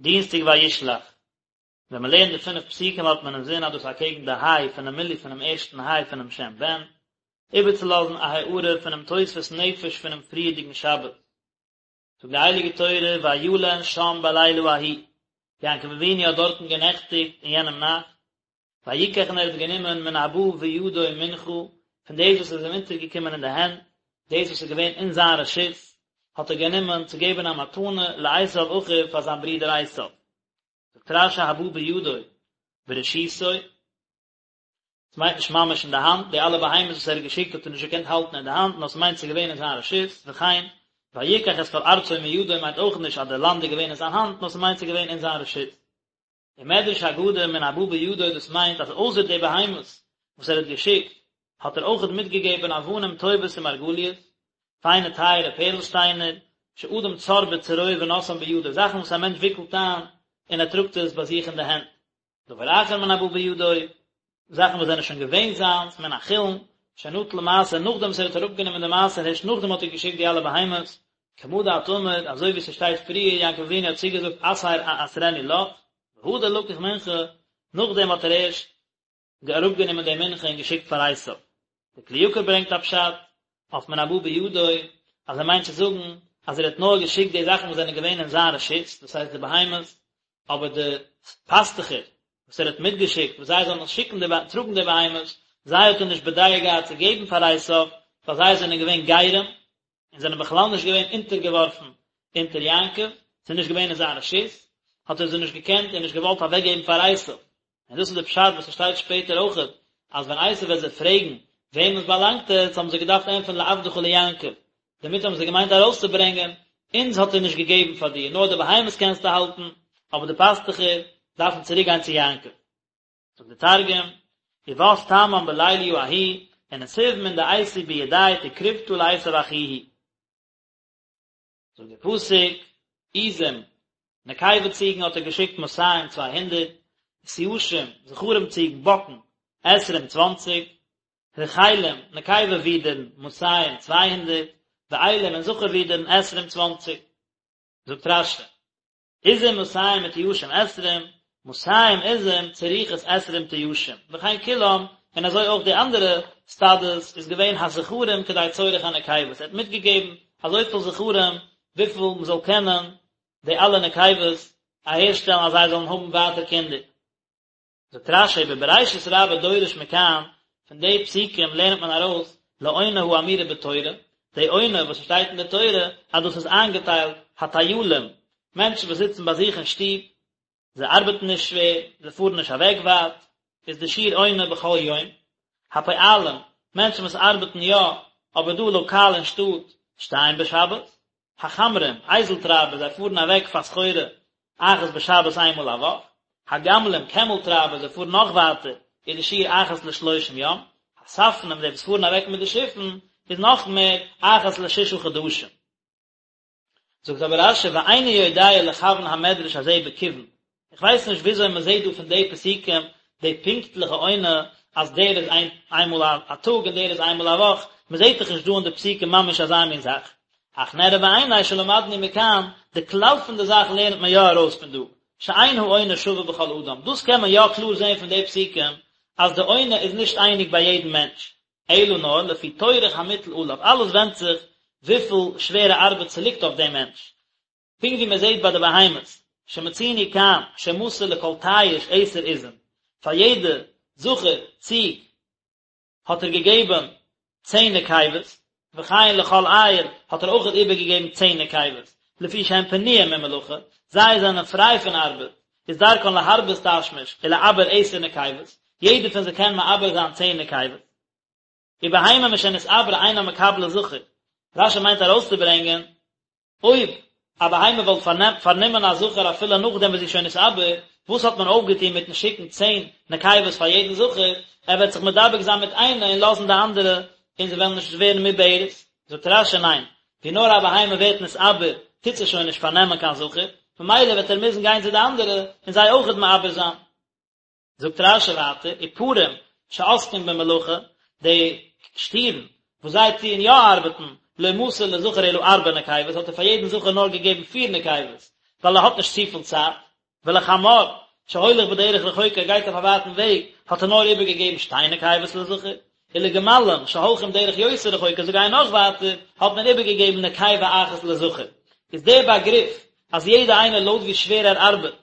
דינסטאג וישלח. ווען מען לערנט די פינף פסוקים האט מען אינזין אז דאס אקעגן די היי פונעם מילוי פונעם ערשטן היי פונעם שם בן, איבערצולאזן א הארה פונעם תוספות נפש פונעם פריערדיגן שבת. זאגט די הייליגע תורה וילן שם בלילה ההוא, יעקב אבינו האט דארטן גענעכטיגט אין יענעם נאכט, ויקח און ער האט גענומען מן הבא בידו מנחה, פון דאס וואס איז אים אונטערגעקומען אין די הענט, דאס וואס איז געווען אין זיין רשות, האט ער גענומען צו געבן א מתנה לעשו אחיו פאר זיין ברודער עשו. זאגט רש"י הבא בידו ברשותו, עס מיינט נישט ממש אין די האנט, די אלע בהמות וואס ער האט געשיקט האט ער נישט געקענט האלטן אין די האנט, נאר עס מיינט ס'איז געווען אין זיין רשות, וכן, ויקח את כל ארצו מידו מיינט אויך נישט אז די לאנד איז געווען אין זיין האנט, נאר ס'מיינט ס'איז געווען אין זיין רשות. ומדרש אגדה מן הבא בידו דאס מיינט אז אויסער די בהמות וואס ער האט געשיקט האט ער אויכעט מיטגעגעבען אבנים טובות ומרגליות, פיינע טייערע פערל שטיינער, שאדם צר בצרור ונושאן בידו, זאכן וואס א מענטש וויקלט איין און ער טראגט עס ביי זיך אין די הענט. דבר אחר מן הבא בידו, זאכן וואס זענען שוין געווען זיינס, מן החולין, שנטל מעשר, נאכדעם וואס ער האט אראפגענומען די מעשר הערשט נאכדעם האט ער געשיקט די אלע בהמות, כמה דאת אמר, אזוי ווי ס'שטייט פריער, יעקב אבינו האט צוגעזאגט עשר אעשרנו לך, והדר לקח מנחה, נאכדעם האט ער ערשט אראפגענומען די מנחה און געשיקט פאר עשיו. די כלי יקר ברענגט א פשט אויף מן הבא בידו, אז ער מיינט צו זאגן אז ער האט נאר געשיקט די זאכן וואס זענען געווען אין זיין רשות, דאס הייסט די בהמות, אבער די פאסטוכער וואס ער האט מיטגעשיקט וואס זיי זאלן שיקן די טראגן די בהמות, זיי האט ער נישט בדעה געהאט צו געבן פאר עשיו, ווייל זיי זענען געווען גרים, און זענען בכלל נישט געווען אונטערגעווארפן אונטער יעקב, ס'איז נישט געווען אין זיין רשות, האט ער זיי נישט געקענט און נישט געוואלט אוועקגעבן פאר עשיו. און דאס איז די פשט וואס ס'שטייט שפעטער אויכעט, אז ווען עשיו וועט זיי פרעגן וועמען עס באלאנגט עס, האבן זיי געדארפט ענטפערן לעבדך ליעקב, דערמיט האבן זיי געמיינט ארויסצוברענגען, אונז האט ער נישט געגעבן פאר דיר, נאר די בהמות קענסטו האלטן, אבער די פאסטוכער דארפן צוריקגיין צו יעקב. זאגט די תרגום, ובת תמן בליליא ההוא, ונסיב מן דאייתי בידיה תקרבתא לעשו אחוהי. זאגט דער פסוק, עזים, נקבה ציגן האט ער געשיקט מאתים 200, ותיישים, זכרים ציגן, באקן, עשרים צוואנציג, רחלים, נקבה ווידערן, מאתים 200, ואילים און זכר ווידערן, עשרים צוואנציג. זאגט רש"י, עזים מאתים ותיישים עשרים, מאתים עזים צריכות עשרים תיישים, וכן כולם, און אזוי אויך די אנדערע סטאדעס איז געווען הזכרים כדי צורך הנקבות, ער האט מיטגעגעבן אזויפיל זכרים וויפיל מען זאל קענען די אלע נקבות אהערשטעלן אז זיי זאלן האבן ווייטער קינדער. זאגט רש"י בבראשית רבה דורש מכאן, פון די פסוקים לערנט מען ארויס לעונה האמורה בתורה, די עונה וואס שטייט אין די תורה אז דאס איז איינגעטיילט הטיילים, מענטשן וואס זיצן ביי זיך אין שטוב, זיי ארבעטן נישט שווער, זיי פארן נישט אוועק ווייט, איז די שיעור עונה בכל יום, הפועלים, מענטשן וואס ארבעטן יא, אבער דא לאקאל אין שטאט, שתיים בשבת, החמרים, אייזל טרייבער, זיי פארן אוועק פאר סחורה אחת בשבת איין מאל א וואך, הגמלים, קעמל טרייבער, זיי פארן נאך ווייטער, איז די שיעור אחת לשלושים יום, הספנים, די וואס פארן אוועק מיט די שיפן, איז נאך מער, אחת לשישה חדשים. זאגט אבער רש"י ואיני יודע לכוון המדרש הזה בכיוון, איך ווייס נישט וויאזוי מען זעט דא פון די פסוקים די פונקטליכע עונה אז דער איז איינמאל א טאג און דער איז איינמאל א וואך, מען זעט דאך נישט דא אין די פסוקים ממש אזא מין זאך. אך נראה בעיני שלמדנו מכאן, די כלל פון די זאך לערנט מען יא ארויס פון דא, שאין העונה שווה בכל אדם, דאס קען מען יא קלאר זען פון די פסוקים אז די עונה איז נישט אייניג ביי יעדן מענטש, אלא נאר לפי טורח המוטל עליו, אלעס ווענדט זיך וויפיל שווערע ארבעט ס'ליגט אויף דעם מענטש, פונקט ווי מען זעט ביי די בהמות, שמצינו כאן שמסר לכל תיש עשר עזים, פאר יעדע זכר ציג האט ער געגעבן צען נקבות, וכן לכל איל האט ער אויכעט איבערגעגעבן צען נקבות, לפי שהן פנויים ממלאכה, זיי זענען פריי פון ארבעט, איז דרכן להרבות תשמיש ולעבר עשר נקבות, יעדער פון זיי קען מעבר זיין צען נקבות. ובהמה משנתעברה אינה מקבלת זכר, רש"י מיינט ארויסצוברענגען, אויב א בהמה וואלט פארנומען א זכר אפילו נאכדעם וואס זי איז שוין נתעבר, וואס האט מען אויפגעטון מיטן שיקן צען נקבות פאר יעדן זכר, ער וועט זיך מדבק זיין מיט איינע און לאזן די אנדערע און זיי וועלן נישט ווערן מעוברת? זאגט רש"י ניין, ווי נאר א בהמה ווערט נתעבר טוט זי שוין נישט פארנעמען קיין זכר, ממילא וועט ער מוזן גיין צו די אנדערע און זיי אויכעט מעבר זיין. זאגט רש"י ווייטער, ופרים שעוסקים במלאכה, די שטירן וואס זיי טוען יא ארבעטן, לא מסר לזכר אלא ארבע נקבות, האט ער פאר יעדן זכר נאר געגעבן פיר נקבות, ווייל ער האט נישט צופיל צייט. ולחמור, שהולך בדרך רחוקה, ער גייט אויף א ווייטן וועג, האט ער נאר איבערגעגעבן שתי נקבות לזכר, ולגמלים, שהולכים דרך יותר רחוקה, זיי גייען נאך ווייטער, האט מען איבערגעגעבן נקבה אחת לזכר. איז דער באגריף אז יעדער איינער לויט ווי שווער ער ארבעט,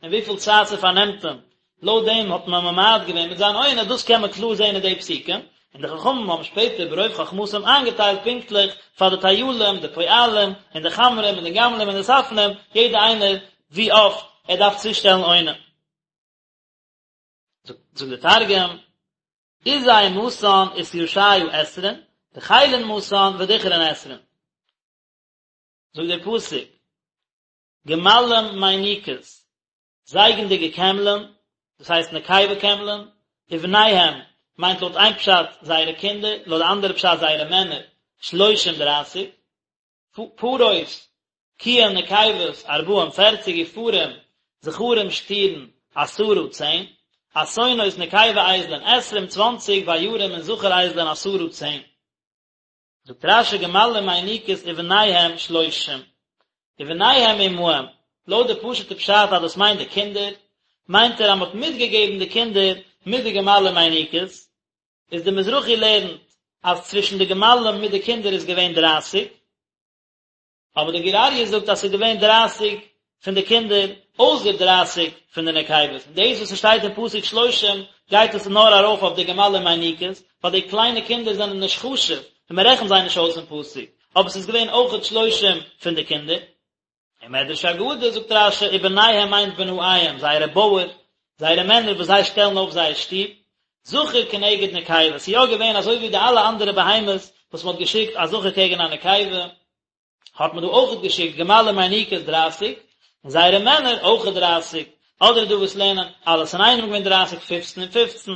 און וויפיל צייט ס'פארנעמט אים, לויט דעם האט מען ממעט געווען מיט זיין עונה, דאס קען מען קלאר זען אין די פסוקים, און די חכמים האבן שפעטער ברוב חכמתם איינגעטיילט פונקטליך פאר די טיילים, די פועלים, און די חמרים, און די גמלים, און די ספנים, יעדער איינער ווי אפט ער דארף צושטעלן עונה. זאגט דער תרגום, עזי מתאן ותישיא עשרין, רחילין מתאן ודכרין עשרין. זאגט דער פסוק, גמלים מיניקות, זייגנדיגע קעמלען, דאס הייסט נקבה קעמלען, ובניהם, מיינט לויט איין פשט זייערע קינדער, לויט די אנדערע פשט זייערע מענער, שלושים דרייסיג, פרות, קיען נקבות, ארבעים פערציג, ופרים, זכרים שטירן, עשרה צען, אתונות נקבה אייזלען, עשרים צוואנציג, ועיירים און זכר אייזלען, עשרה צען. זאגט רש"י גמלים מיניקות ובניהם שלושים ובניהם עמהם, לויט די פשוט'ע פשט אז דאס מיינט די קינדער, מיינט ער אז מ'האט מיטגעגעבן די קינדער מיט די גמלים מיניקות, איז די מזרחי לערנט אז צווישן די גמלים מיט די קינדער איז געווען דרייסיג, אבער די גור אריה זאגט אז ס'איז געווען דרייסיג פון די קינדער אויסער דרייסיג פון די נקבות, און דאס וואס ס'שטייט אין פסוק שלושים גייט עס נאר ארויף אויף די גמלים מיניקות, ווייל די קליינע קינדער זענען נישט חשוב און מ'רעכנט זיי נישט אויס אין פסוק, אבער ס'איז געווען אויכעט שלושים פון די קינדער. און מדרש אגדה זאגט רש"י ובניהם מיינט בנאיהם, זייערע בויער, זייערע מענער וואס זיי שטעלן אויף זייער שטוב, זכר כנגד נקבה, ס'איז יא געווען אזוי ווי די אלע אנדערע בהמות וואס מ'האט געשיקט א זכר קעגן א נקבה, האט מען דא אויכעט געשיקט גמלים מיניקות דרייסיג, און זייערע מענער אויכעט דרייסיג, אדער איז דא וואס לערנען אלעס אינאיינעם געווען דרייסיג פופצן און פופצן.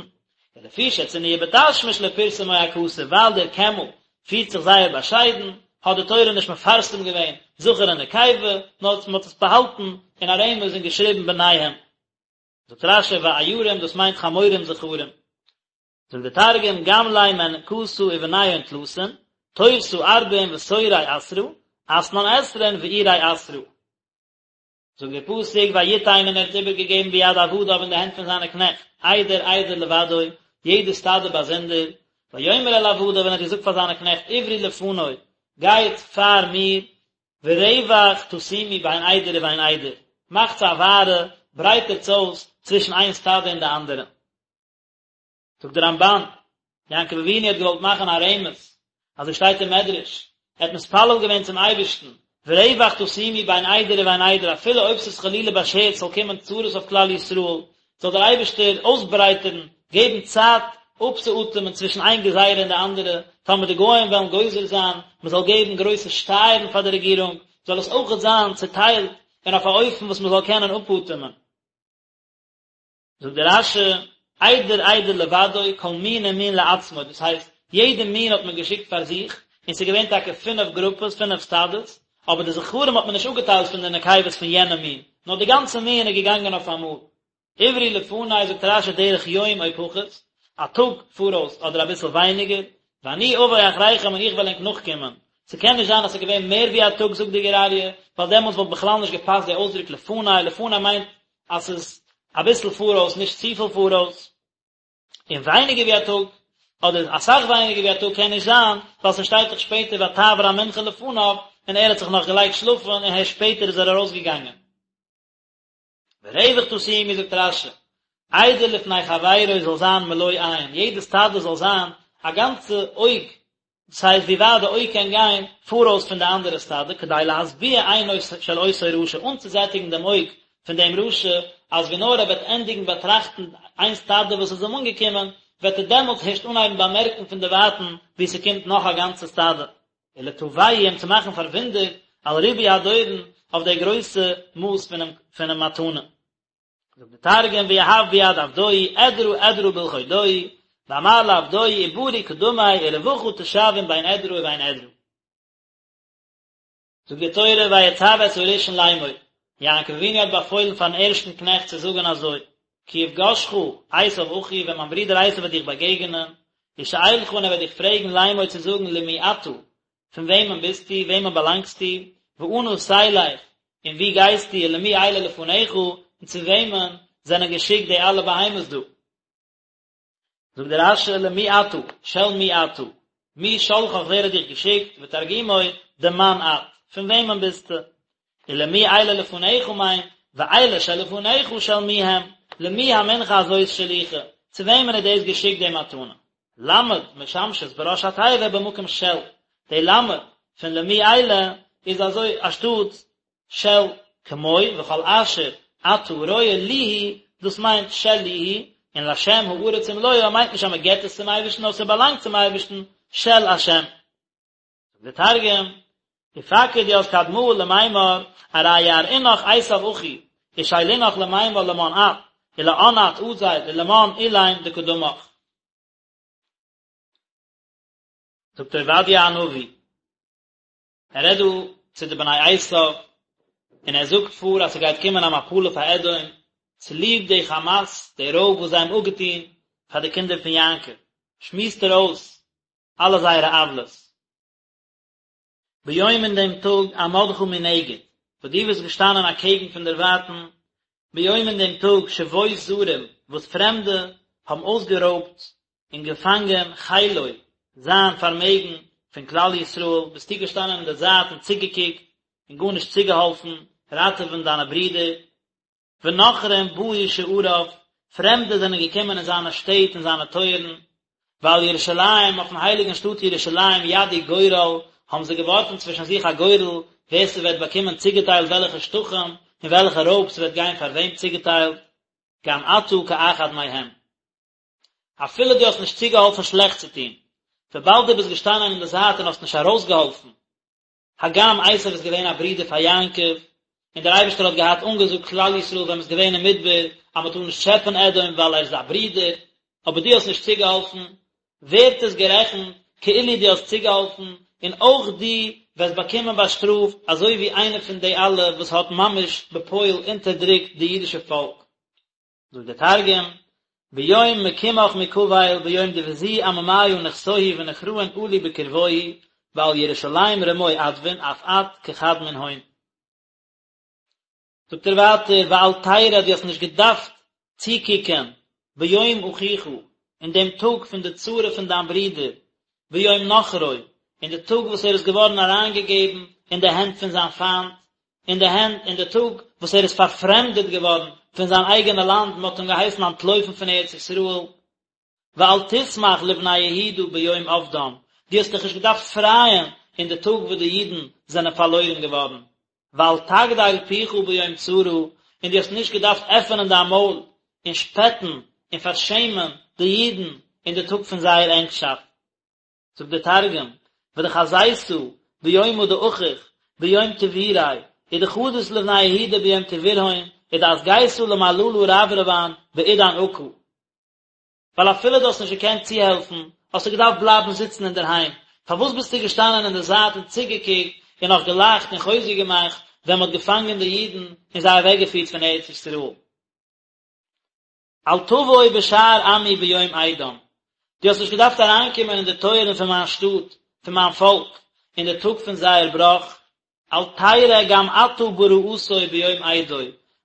ולפי שצנועה בתשמיש לא פרסמו הכתוב, ווייל דער קעמל פירט זיך זייער באשיידן, האט די תורה נישט מפרסם געווען זכר און נקבה, נאר מען האט עס באהאלטן אין א רמז און געשריבן בניהם. זאגט רש"י ועיירים דאס מיינט חמורים זכרים. זאגט דער תרגום גמלי מנקתא ובניהון תלתין, תורתא ארבעין ותורי עשרא, אתנן עשרין ועירי עשרא. זאגט דער פסוק ויתן און ער האט איבערגעגעבן ביד עבדיו אין די הענט פון זיינע קנעכט, עדר עדר לבדו, יעדע סטאדע באזונדער, ויאמר אל עבדיו און ער האט געזאגט פאר זיינע קנעכט עברו לפני, גייט פאר מיר, ורווח תשימו בין עדר ובין עדר, מאכטס א ווארע, ברייטערטס אויס צווישן איין סטאדע און די אנדערע. זאגט דער רמב"ן, יעקב אבינו האט געוואלט מאכן א רמז, אזוי שטייט אין מדרש, ער האט מתפלל געווען צום אייבערשטן, ורווח תשימו בין עדר ובין עדר, אפילו אויב ס'איז חלילה באשערט ס'זאל קומען צרות אויף כלל ישראל, זאל דער אייבערשטער אויסברייטערן, געבן צייט אפצואטעמען צווישן איין גזירה און די אנדערע, טאמער די גוים וועלן גוזר זיין מען זאל געבן גרויסע שטייערן פאר די רעגירונג, זאל עס אויכעט זיין צוטיילט און אויף א אופן וואס מען זאל קענען אפאטעמען. זאגט דער רש"י, עדר עדר לבדו, כל מין ומין לעצמו, דאס הייסט, יעדע מין האט מען געשיקט פאר זיך, און ס'איז געווען טאקע פינף גרופעס, פינף סטאדעס, אבער די זכרים האט מען נישט אפגעטיילט פון די נקבות פון יענע מין, נאר די גאנצע מין איז געגאנגען אויף אמאל. עברו לפני, זאגט רש"י, דרך יום או פחות, א טאג פאראויס אדער אביסל ווייניגער, ואני אבוא אחריכם און איך וועל ענק נאכקומען. ס'קען נישט זיין אז ס'איז געווען מער ווי א טאג זאגט די גור אריה, ווייל דעמאלטס וואלט בכלל נישט געפאסט די אויסדרוק לפני, לפני מיינט אז ס'איז אביסל פאראויס נישט צופיל פאראויס, און ווייניגער ווי א טאג, אדער אסאך ווייניגער ווי א טאג קען נישט זיין, ווייל ס'שטייט דאך שפעטער ותעבור המנחה לפניו, און ער האט זיך נאך געלייגט שלאפן און הערשט שפעטער איז ער ארויסגעגאנגען. ורווח תשימו זאגט רש"י, עדר לפני חברו זאל זיין מלא עין, יעדע סטאדע זאל זיין א גאנצע אויג דאס הייסט ווי ווייט די אויג קען גיין פאראויס פון די אנדערע סטאדע, כדי להשביע עינו של אותו רשע, אנצוזעטיגן דעם אויג פון דעם רשע, אז ווי נאר ער וועט ענדיגן באטראכטן איין סטאדע וואס איז אים אנגעקומען, וועט ער דעמאלטס הערשט אנהייבן באמערקן פון דערווייטן ווי ס'קומט נאך א גאנצע סטאדע. ולתווהו אים צו מאכן פארוואונדערט על ריבוי הדורון אויף די גרויסע מאס פונעם מתנה. זאגט די תרגום ויהב ביד עבדוהי אדרא אדרא בלחודוהי ואמר לעבדוהי עברו קדמי ורווחא תשוין בין אדרא ובין אדרא. זאגט די תורה ויצו את הראשון לאמור, יעקב אבינו האט באפוילן פארן ערשטן קנעכט צו זאגן אזוי, כי יפגשך עשו אחי ווען מיין ברודער עשו וועט דיך באגעגענען, ושאלך און ער וועט דיך פרעגן לאמור צו זאגן למי אתה, פון וועמען ביסטו, וועמען באלאנגסטו, ואנה תלך, און וואו גייסטו, ולמי אלה לפניך? און צו וועמען זענען געשיקט די אלע בהמות דא? זאגט דער רש"י למי אתה, של מי אתה, מי שלחך ווער האט דיך געשיקט, ותרגומו דמאן את, פון וועמען ביסטו? ולמי אלה לפניך מיינט, ואלה שלפניך של מי הם, למי המנחה הזאת שלוחה, צו וועמען איז דאס געשיקט די מתנה? למד משמשת בראש התיבה במקום של, די למד פון למי אלה איז אזוי אנשטאט של כמו וכל אשר אתה רואה לי הוא, דאס מיינט שלי הוא, און להשם הארץ ומלואה מיינט נישט אז מען געבט עס צום אייבערשטן נאר ס'באלאנגט צום אייבערשטן, של השם. זאגט דער תרגום, ופקיד ית קדמאה למימר ארי יערעינך עשו אחי, ושאלינך למימר למאן את, ולאן את אזיל, ולמאן אלין דקדמך. זאגט עובדיה הנביא, ער רעדט דא צו די בני עשו, און ער זאגט פאר אז ס'גייט קומען א מפלה פאר אדום, צוליב די חמס, די רויב וואס זיי האבן אפגעטון פאר די קינדער פון יעקב, שמועסט ער אויס אלע זייערע עוולות. ביום אין דעם טאג עמדך מנגד, וואס דו ביסט געשטאנען אקעגן פון דערווייטן, ביום אין דעם טאג שבות זרים, וואס פרעמדע האבן אויסגערויבט און געפאנגען חילו, זיין פארמעגן פון כלל ישראל, ביסטו געשטאנען אין די זייט און צוגעקוקט און גארנישט צוגעהאלפן ראטעווען דיינע ברידער. ונכרים באו שעריו, פרעמדע זענען געקומען אין זיינע שטעט און זיינע טויערן, ועל ירושלים, אויפן הייליגן שטאט ירושלים ידו גורל, האבן זיי געווארפן צווישן זיך א גורל, ווער ס'וועט באקומען צוגעטיילט וועלכע שטחים, און וועלכע רויב ס'וועט גיין פאר וועם צוגעטיילט, גם אתה כאחד מהם. אפילו דו האסט נישט צוגעהאלפן שלעכטס צו טון, וויבאלד דו ביסט געשטאנען אין די זייט און האסט נישט ארויסגעהאלפן, הגם עשו איז געווען א ברודער פאר יעקב, און דער אייבערשטער האט געהאט אנגעזאגט כלל ישראל ווען מען איז געווען אין מדבר אז מען טאר נישט טשעפען אדום ווייל ער איז א ברודער, אבער דו האסט נישט צוגעהאלפן, ווערט עס גערעכנט כאילו דו האסט צוגעהאלפן, און אויך דו וועסט באקומען באשטראפט אזוי ווי איינער פון די אלע וואס האט ממש בפועל אונטערדרוקט די אידישע פאלק. זאגט דער תרגום, ביום מקימך מקבל ביום דבזו עממיא נכסוהי ונכראין עלו בקרבוהי ועל ירושלים רמו אדוין אף את כחד מנהון. זאגט ער ווייטער ואל תרא דו האסט נישט געדארפט צוקוקען ביום אחיך אין דעם טאג פון די צרה פון דיין ברודער ביום נכרו אין די טאג וואס ער איז געווארן אריינגעגעבן אין די הענט פון זיין פיינט אין די הענט אין די טאג וואס ער איז פארפרעמדעט געווארן פון זיין אייגענע לאנד, מען האט אים געהייסן אנטלויפן פון ארץ ישראל, ואל תשמח לבני יהודה ביום אבדם, דו האסט דיך נישט געדארפט פרייען אין די טאג וואס די אידן זענען פארלוירן געווארן, ואל תגדל פיך ביום צרה, און דו האסט נישט געדארפט עפענען דיין מויל און שפעטן און פארשעמען די אידן אין די טאג פון זייער ענגשאפט. זאגט דער תרגום, ודחזיתא ביומא דאחיך ביום טבוריה, ודחדית לבני יהודה ביום טבורהון, ודאסגיתא למללא רברבן בעידן עקא. ווייל אפילו דו האסט נישט געקענט צוהעלפן, האסטו געדארפט בלייבן זיצן אינדערהיים, פארוואס ביסטו געשטאנען אין די זייט און צוגעקוקט און נאך געלאכט און חוזק געמאכט ווען מען האט געפאנגען די אידן און זיי אוועקגעפירט פון ארץ ישראל? אל תבוא בשער עמי ביום אידם, דו האסט נישט געדארפט אריינקומען אין די טויערן פון מיין שטאט, פון מיין פאלק, אין די טאג פון זייער בראך, אל תרע גם אתה ברעתו ביום אידו,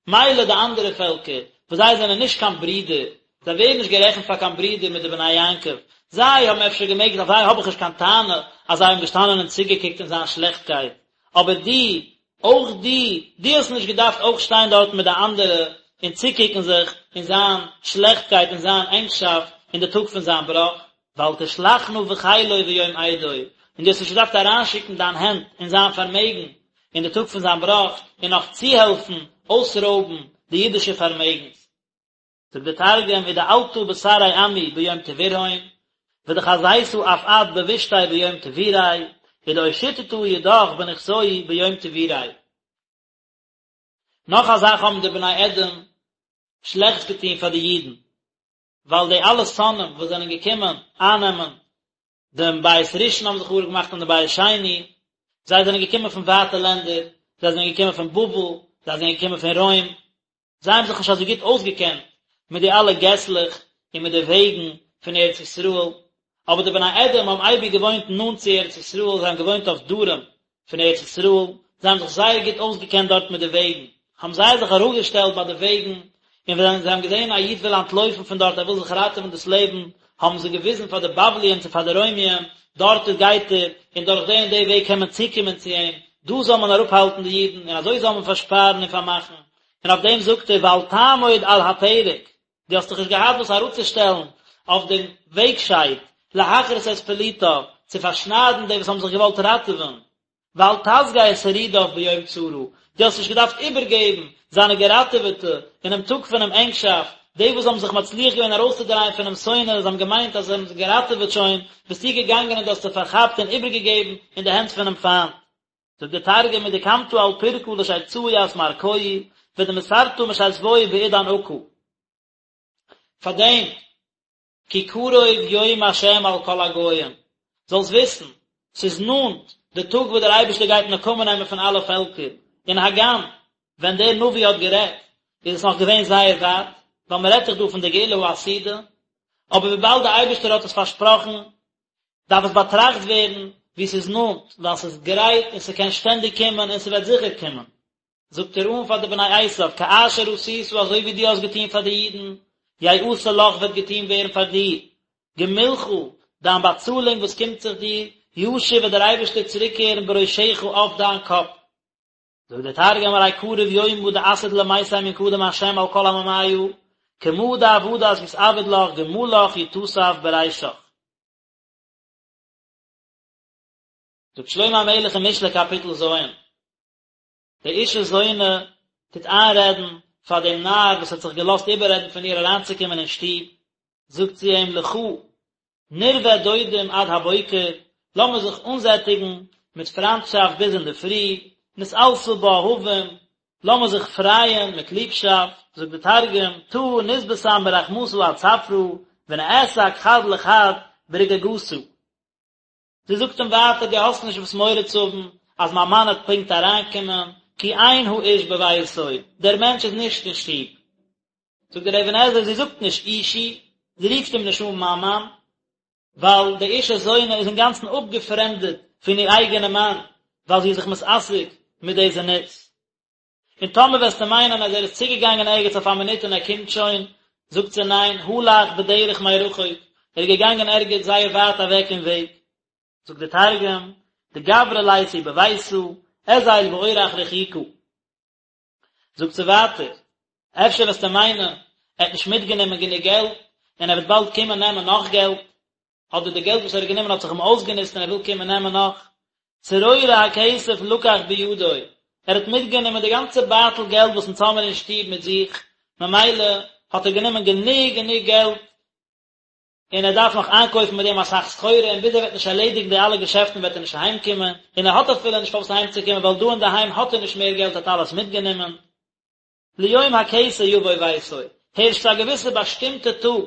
מילא די אנדערע פעלקער, וואס זיי זענען נישט קיין ברידער, זיי ווערן נישט גערעכנט פאר קיין ברידער מיט די בני יעקב, זיי האבן אפשר געמעגט, אויף זיי האב איך נישט קיין טענה אז זיי האבן געשטאנען און צוגעקוקט אין זיין שלעכטקייט, אבער דו, אויך דו, דו האסט נישט געדארפט אויך שטיין דארטן מיט די אנדערע און צוקוקן זיך אין זיין שלעכטקייט און זיין ענגשאפט אין די טאג פון זיין בראך, ואל תשלחנה בחילו ביום אידו, און דו האסט נישט געדארפט אריינשיקן דיין הענט אין זיין פארמעגן אין די טאג פון זיין בראך און נאך צוהעלפן אויסרויבן די אידישע פארמעגנס. זאגט דער תרגום ודעלתא בתרעי עמי ביום טבורהון, ודחזיתא אף את בבישתיה ביום טבוריה, ודאושיטתא ידך בנכסוהי ביום טבוריה. נאך א זאך האבן די בני אדום שלעכטס געטון פאר די אידן, ווייל די אלע שונאים וואס זענען געקומען אייננעמען דעם בית ראשון האבן זיי חרוב געמאכט און דעם בית שני, זיי זענען געקומען פון ווייטע לענדער, זיי זענען געקומען פון בבל, זיי זענען געקומען פון רוים, זיי האבן זיך נישט אזוי גוט אויסגעקענט מיט די אלע געסלעך און מיט די וועגן פון ארץ ישראל, אבער די בני אדום האבן אייביג געוואוינט נאנט צו ארץ ישראל, זיי האבן געוואוינט אויף דרום פון ארץ ישראל, זיי האבן זיך זייער גוט אויסגעקענט דארט מיט די וועגן, האבן זיי זיך אראפגעשטעלט ביי די וועגן, און ווען זיי האבן געזען א איד וויל אנטלויפן פון דארט, ער וויל זיך ראטעווען דאס לעבן, האבן זיי געוויזן פאר די בבליים צו פאר די רוימיים, דארט איז גייט ער, און דורך די און די וועג קען מען צוקומען צו אים, דא זאל מען אראפהאלטן די אידן, און אזוי זאל מען פארשפארן און פארמאכן. און אויף דעם זאגט ער, ואל תעמוד על הפרק, דו האסט דיך נישט געהאט וואס אראפצושטעלן אויף דעם וועגשייד, להכרית את פליטיו, צו פארשניידן די וואס האבן זיך געוואלט ראטעווען, ואל תסגר שרידיו ביום צרה, דו האסט נישט געדארפט איבערגעבן זיינע געראטעוועטע אינעם טאג פונעם ענגשאפט, די וואס האבן זיך מצליח געווען ארויסצודרייען פונעם שונא, זיי האבן געמיינט אז זיי האבן זיך געראטעוועט שוין, ביסטו געגאנגען און דו האסט זיי פארכאפט און איבערגעגעבן אין די הענט פונעם פיינט. זאגט דער תרגום ודקמתא על פרקא לשיצאה ית מערקוהי ודמסרתא משתבוהי בעידן עקא. פארדעם כי קרוב יום השם על כל הגוים, זאלסט וויסן, ס'איז נאנט די טאג וואס דער אייבערשטער גייט נקמה נעמען פון אלע פעלקער, און הגם ווען דער נביא האט גערעדט איז עס נאך געווען זייער ווייט, ווייל מען רעדט דאך דא פון די גאולה העתידה, אבער וויבאלד דער אייבערשטער האט עס פארשפראכן, דארף עס באטראכט ווערן ווי ס'איז נאנט, ווייל ס'איז גרייט און ס'קען שטענדיג קומען און ס'וועט זיכער קומען. זאגט ער אן פאר די בני עשיו, כאשר עשית אזוי ווי דו האסט געטון פאר די אידן, יעשה לך וועט געטון ווערן פאר דיר, גמולך, דיין באצאלונג וואס קומט זיך דיר, ישיב וועט דער אייבערשטער צוריקקערן בראשך אויף דיין קאפ. זאגט דער תרגום ארי קריב יומא דעתיד למיתי מן קדם השם על כל עממיא, כמה דעבדת יתעבד לך גמלך יתסף ברישך. זאגט שלמה המלך אין משלי קאפיטל ז', די אשה זונה טוט איינרעדן פאר דעם נער וואס האט זיך געלאזט איבעררעדן פון איר אריינצוקומען אין שטוב, זאגט זי אים לכה נרווה דודים עד הבוקר, לאמיר זיך אנזעטיגן מיט פריינטשאפט ביז אינדערפרי, נתעלסה באהבים, לאמיר זיך פרייען מיט ליבשאפט, זאגט די תרגום, תא נתבשם ברחמתא עד צפרא, ונעסק חד לחד ברגיגתא. זי זאגט אים ווייטער דו האסט נישט וואס מורא צו האבן אז מיין מאן וועט פונקט אריינקומען, כי אין האיש בביתו, דער מענטש איז נישט אין שטוב. זאגט דער אבן עזרא זי זאגט נישט אישי, זי רופט אים נישט אן מיין מאן, ווייל די אשה זונה איז אינגאנצן אפגעפרעמדעט פון איר אייגענע מאן, ווייל זי איז זיך מתעסק מיט די זנות. און טאמער וועסטו מיינען אז ער איז צוגעגאנגען ערגעץ אויף א מינוט און ער קומט שוין, זאגט זי ניין, הלך בדרך מרחוק, ער איז געגאנגען ערגעץ זייער ווייט אוועק אין וועג. זאגט דער תרגום, דגברא ליתא בביתא, אזיל באורח רחיקא. זאגט זי ווייטער, אפשר וועסטו מיינען, ער האט נישט מיטגענומען גענוג געלט, און ער וועט באלד קומען נעמען נאך געלט, אדער די געלט וואס ער האט גענומען האט זיך אים אויסגענוצט און ער וויל קומען נעמען נאך. צרור הכסף לקח בידו, ער האט מיטגענומען די גאנצע בייטל געלט וואס אונז האמיר אין שטוב מיט זיך, ממילא האט ער גענומען גענוג גענוג געלט, און ער דארף נאך איינקויפן מיט דעם אסאך סחורה, און ביז ער וועט נישט ערלעדיגן די אלע געשעפטן וועט ער נישט אהיימקומען, און ער האט אפילו נישט פארוואס אהיימצוקומען ווייל דא אינדערהיים האט ער נישט מער געלט ער האט אלעס מיטגענומען. ליום הכסא יבוא ביתו, הערשט צו א געוויסע באשטימטע טאג,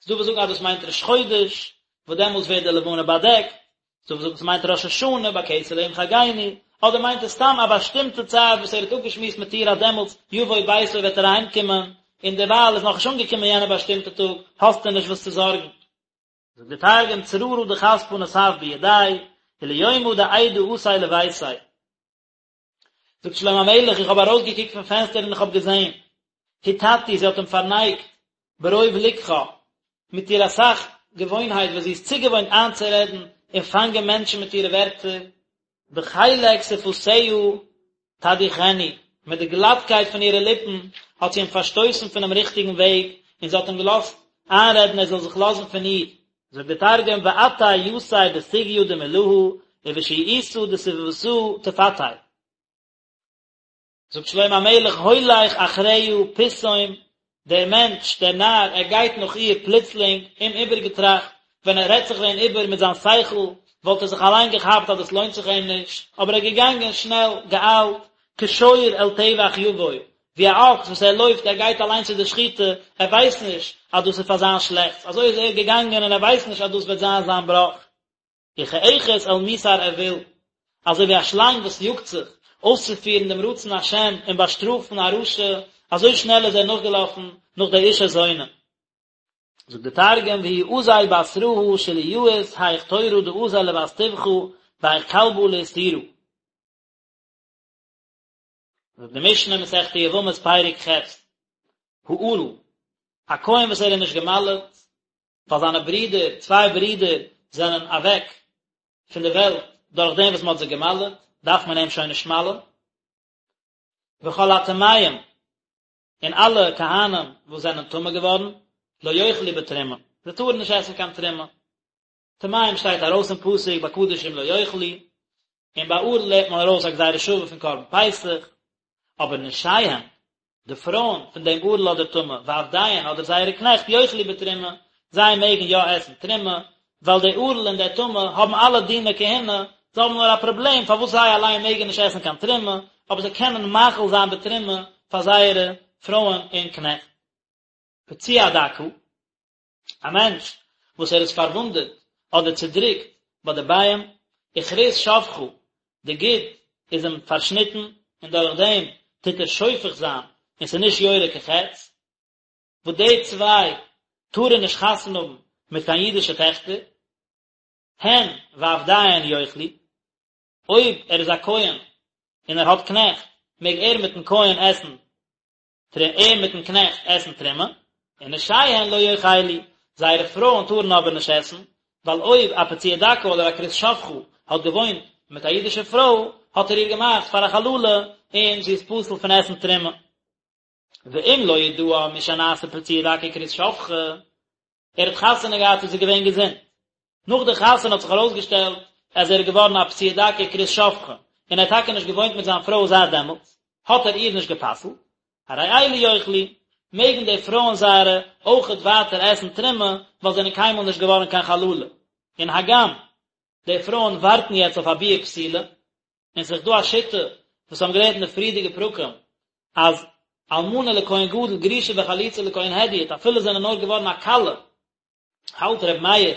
ס'דא וואס זאגן אז דאס מיינט ראש חודש, וואס דעמאלטס ווערט די לבנה באדעקט, ס'דא וואס זאגן ס'מיינט ראש השנה, בכסה ליום חגנו, אדער מיינט עס סתם א באשטימטע צייט וואס ער האט אפגעשמועסט מיט איר אז דעמאלטס יבוא ביתו וועט ער אהיימקומען, און דערווייל איז נאכנישט אנגעקומען יענע באשטימטע טאג, האסטו נישט וואס צו זארגן. זאגט דער תרגום צררא דכספא נסב בידיה, וליומא דאידא אתי לביתיה. זאגט שלמה המלך, איך האב ארויסגעקוקט פון פענסטער און איך האב געזען, הטתו, זי האט אים פארנייגט, ברוב לקחה, מיט איר אסאך געוואוינהייט וואס זי איז צוגעוואוינט איינצורעדן און פאנגען מענטשן מיט אירע ווערטער, בחלק שפתיה תדיחנו, מיט די גלאטקייט פון אירע ליפן האט זי אים פארשטויסן פונעם ריכטיגן וועג, און זי האט אים געלאזט איינרעדן ער זאל זיך לאזן פון איר, זאגט דער תרגום ואטעיתיה בסוגיא דמלהא ובשיעותא דספוותא תפתיה. זאגט שלמה המלך הולך אחריה פתאום, דער מענטש, דער נאר, ער גייט נאך איר פלוצלינג, אומאיבערגעטראכט, ווען ער רעדט זיך ווען איבער מיט זיין שכל, וואלט ער זיך אליין געכאפט אז דאס לוינט זיך אים נישט, אבער ער איז געגאנגען שנעל, געאיילט, כשור אל טבח יבוא, ווי א אקס וואס ער לויפט ער גייט אליין צו די שחיטה, ער ווייסט נישט אז דאס איז פאר זיין שלעכטס, אזוי איז ער געגאנגען און ער ווייסט נישט אז דאס וועט זיין זיין בראך. וכאחת אל מוסר אויל, אזוי ווי א שלאנג וואס יאגט זיך אויסצופירן דעם רצון השם און באשטראפן א רשע, אזוי שנעל איז ער נאכגעלאפן נאך די אשה זונה. זאגט דער תרגום והוא אזיל בתרהא שליאית היך תורא דאזיל לבת טבחא והיך כלבא לאיסורא. זאגט די משנה מסכת יבמות פרק ח', הערל, א כהן וואס ער איז נישט געמל'עט, ווייל זיינע ברידער, צוויי ברידער, זענען אוועק פון די וועלט דורך דעם וואס מען האט זיי געמל'עט, דארף מען אים שוין נישט מל'ען. וכל הטמאים, און אלע כהנים וואס זענען טמא געווארן, לא יאכלו בתרומה, זיי טארן נישט עסן קיין תרומה. טמאים שטייט ארויס אין פסוק ביי קדשים לא יאכלו, און ביי ערל לערנט מען ארויס א גזירה שווה פון קרבן פסח, אבער נשיהן, די פרויען פון דעם ערל אדער טמא, ועבדיהן אדער זייערע קנעכט יאכלו בתרומה, זיי מעגן יא עסן תרומה, ווייל די ערל און דער טמא האבן אלע דיני כהונה, זיי האבן נאר א פראבלעם פארוואס זיי אליין מעגן נישט עסן קיין תרומה, אבער זיי קענען מאכיל זיין בתרומה פאר זייערע פרויען און קנעכט. פצוע דכא. א מענטש וואס ער איז פארוואונדעט אדער צודריקט ביי די ביעים, וכרות שפכה, די גיד איז אים פארשניטן, און דורך דעם טוט ער שופך זיין, און ס'איז נישט יורה כחץ, וואס די צוויי טארן נישט חתונה האבן מיט קיין אידישע טעכטער, הן ועבדיהן יאכלו, אויב ער איז א כהן און ער האט קנעכט, מעג ער מיטן כהן עסן ער מיטן קנעכט עסן תרומה, ונשיהן לא יאכלו, זייערע פרויען טארן אבער נישט עסן, ווייל אויב א פצוע דכא אדער א כרות שפכה האט געוואוינט מיט א אידישע פרוי, האט ער איר געמאכט פאר א חללה, און זי איז פסול פון עסן תרומה. ואם לא ידעה משנעשה פצוע דכא וכרות שפכה, ער האט חתונה געהאט איז ער געווען געזונט, נאך די חתונה האט זיך ארויסגעשטעלט אז ער איז געווארן א פצוע דכא וכרות שפכה, און ער האט טאקע נישט געוואוינט מיט זיין פרוי זייט דעמאלטס, האט ער איר נישט גע'פסל'ט, הרי אלו יאכלו, מעגן די פרויען זייערע אויכעט ווייטער עסן תרומה, ווייל זיי זענען קיינמאל נישט געווארן קיין חללה, און הגם די פרויען ווארטן יעצט אויף א ביאה פסולה, און ס'איז דא א שיטה וואס האבן געלערנט אין די פריערדיגע פרקים אז אלמנה לכהן גדול גרושה וחלוצה לכהן הדיוט אפילו זענען נאר געווארן א כלה האלט ר' מאיר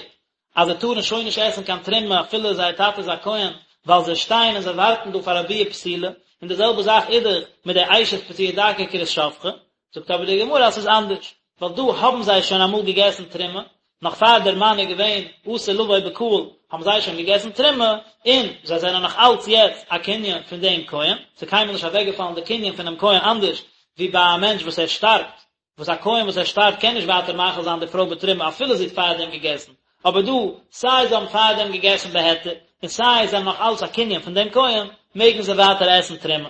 אז זיי טארן שוין נישט עסן קיין תרומה אפילו זייער טאטע איז א כהן ווייל זיי שטייען און זיי ווארטן דא פאר א ביאה פסולה און די זעלבע זאך איז דאך מיט די אשת פצוע דכא וכרות שפכה זאגט אבער די גמרא אז ס'איז אנדערש, ווייל דא האבן זיי שוין אמאל געגעסן תרומה, נאך פאר דער מאן איז געווען אסור לבוא בקהל האבן זיי שוין געגעסן תרומה, און זיי זענען נאך אלץ יעצט א קנין פון דעם כהן, ס'איז קיינמאל נישט אוועקגעפאלן די קנין פונעם כהן אנדערש ווי ביי א מענטש וואס ער שטארבט, וואס א כהן וואס ער שטארבט קען נישט ווייטער מאכיל זיין די פרוי בתרומה אפילו זי האט פארדעם געגעסן, אבער דא, סיי זיי האבן פארדעם געגעסן בהיתר, און סיי זיי זענען נאך אלץ א קנין פון דעם כהן, מעגן זיי ווייטער עסן תרומה.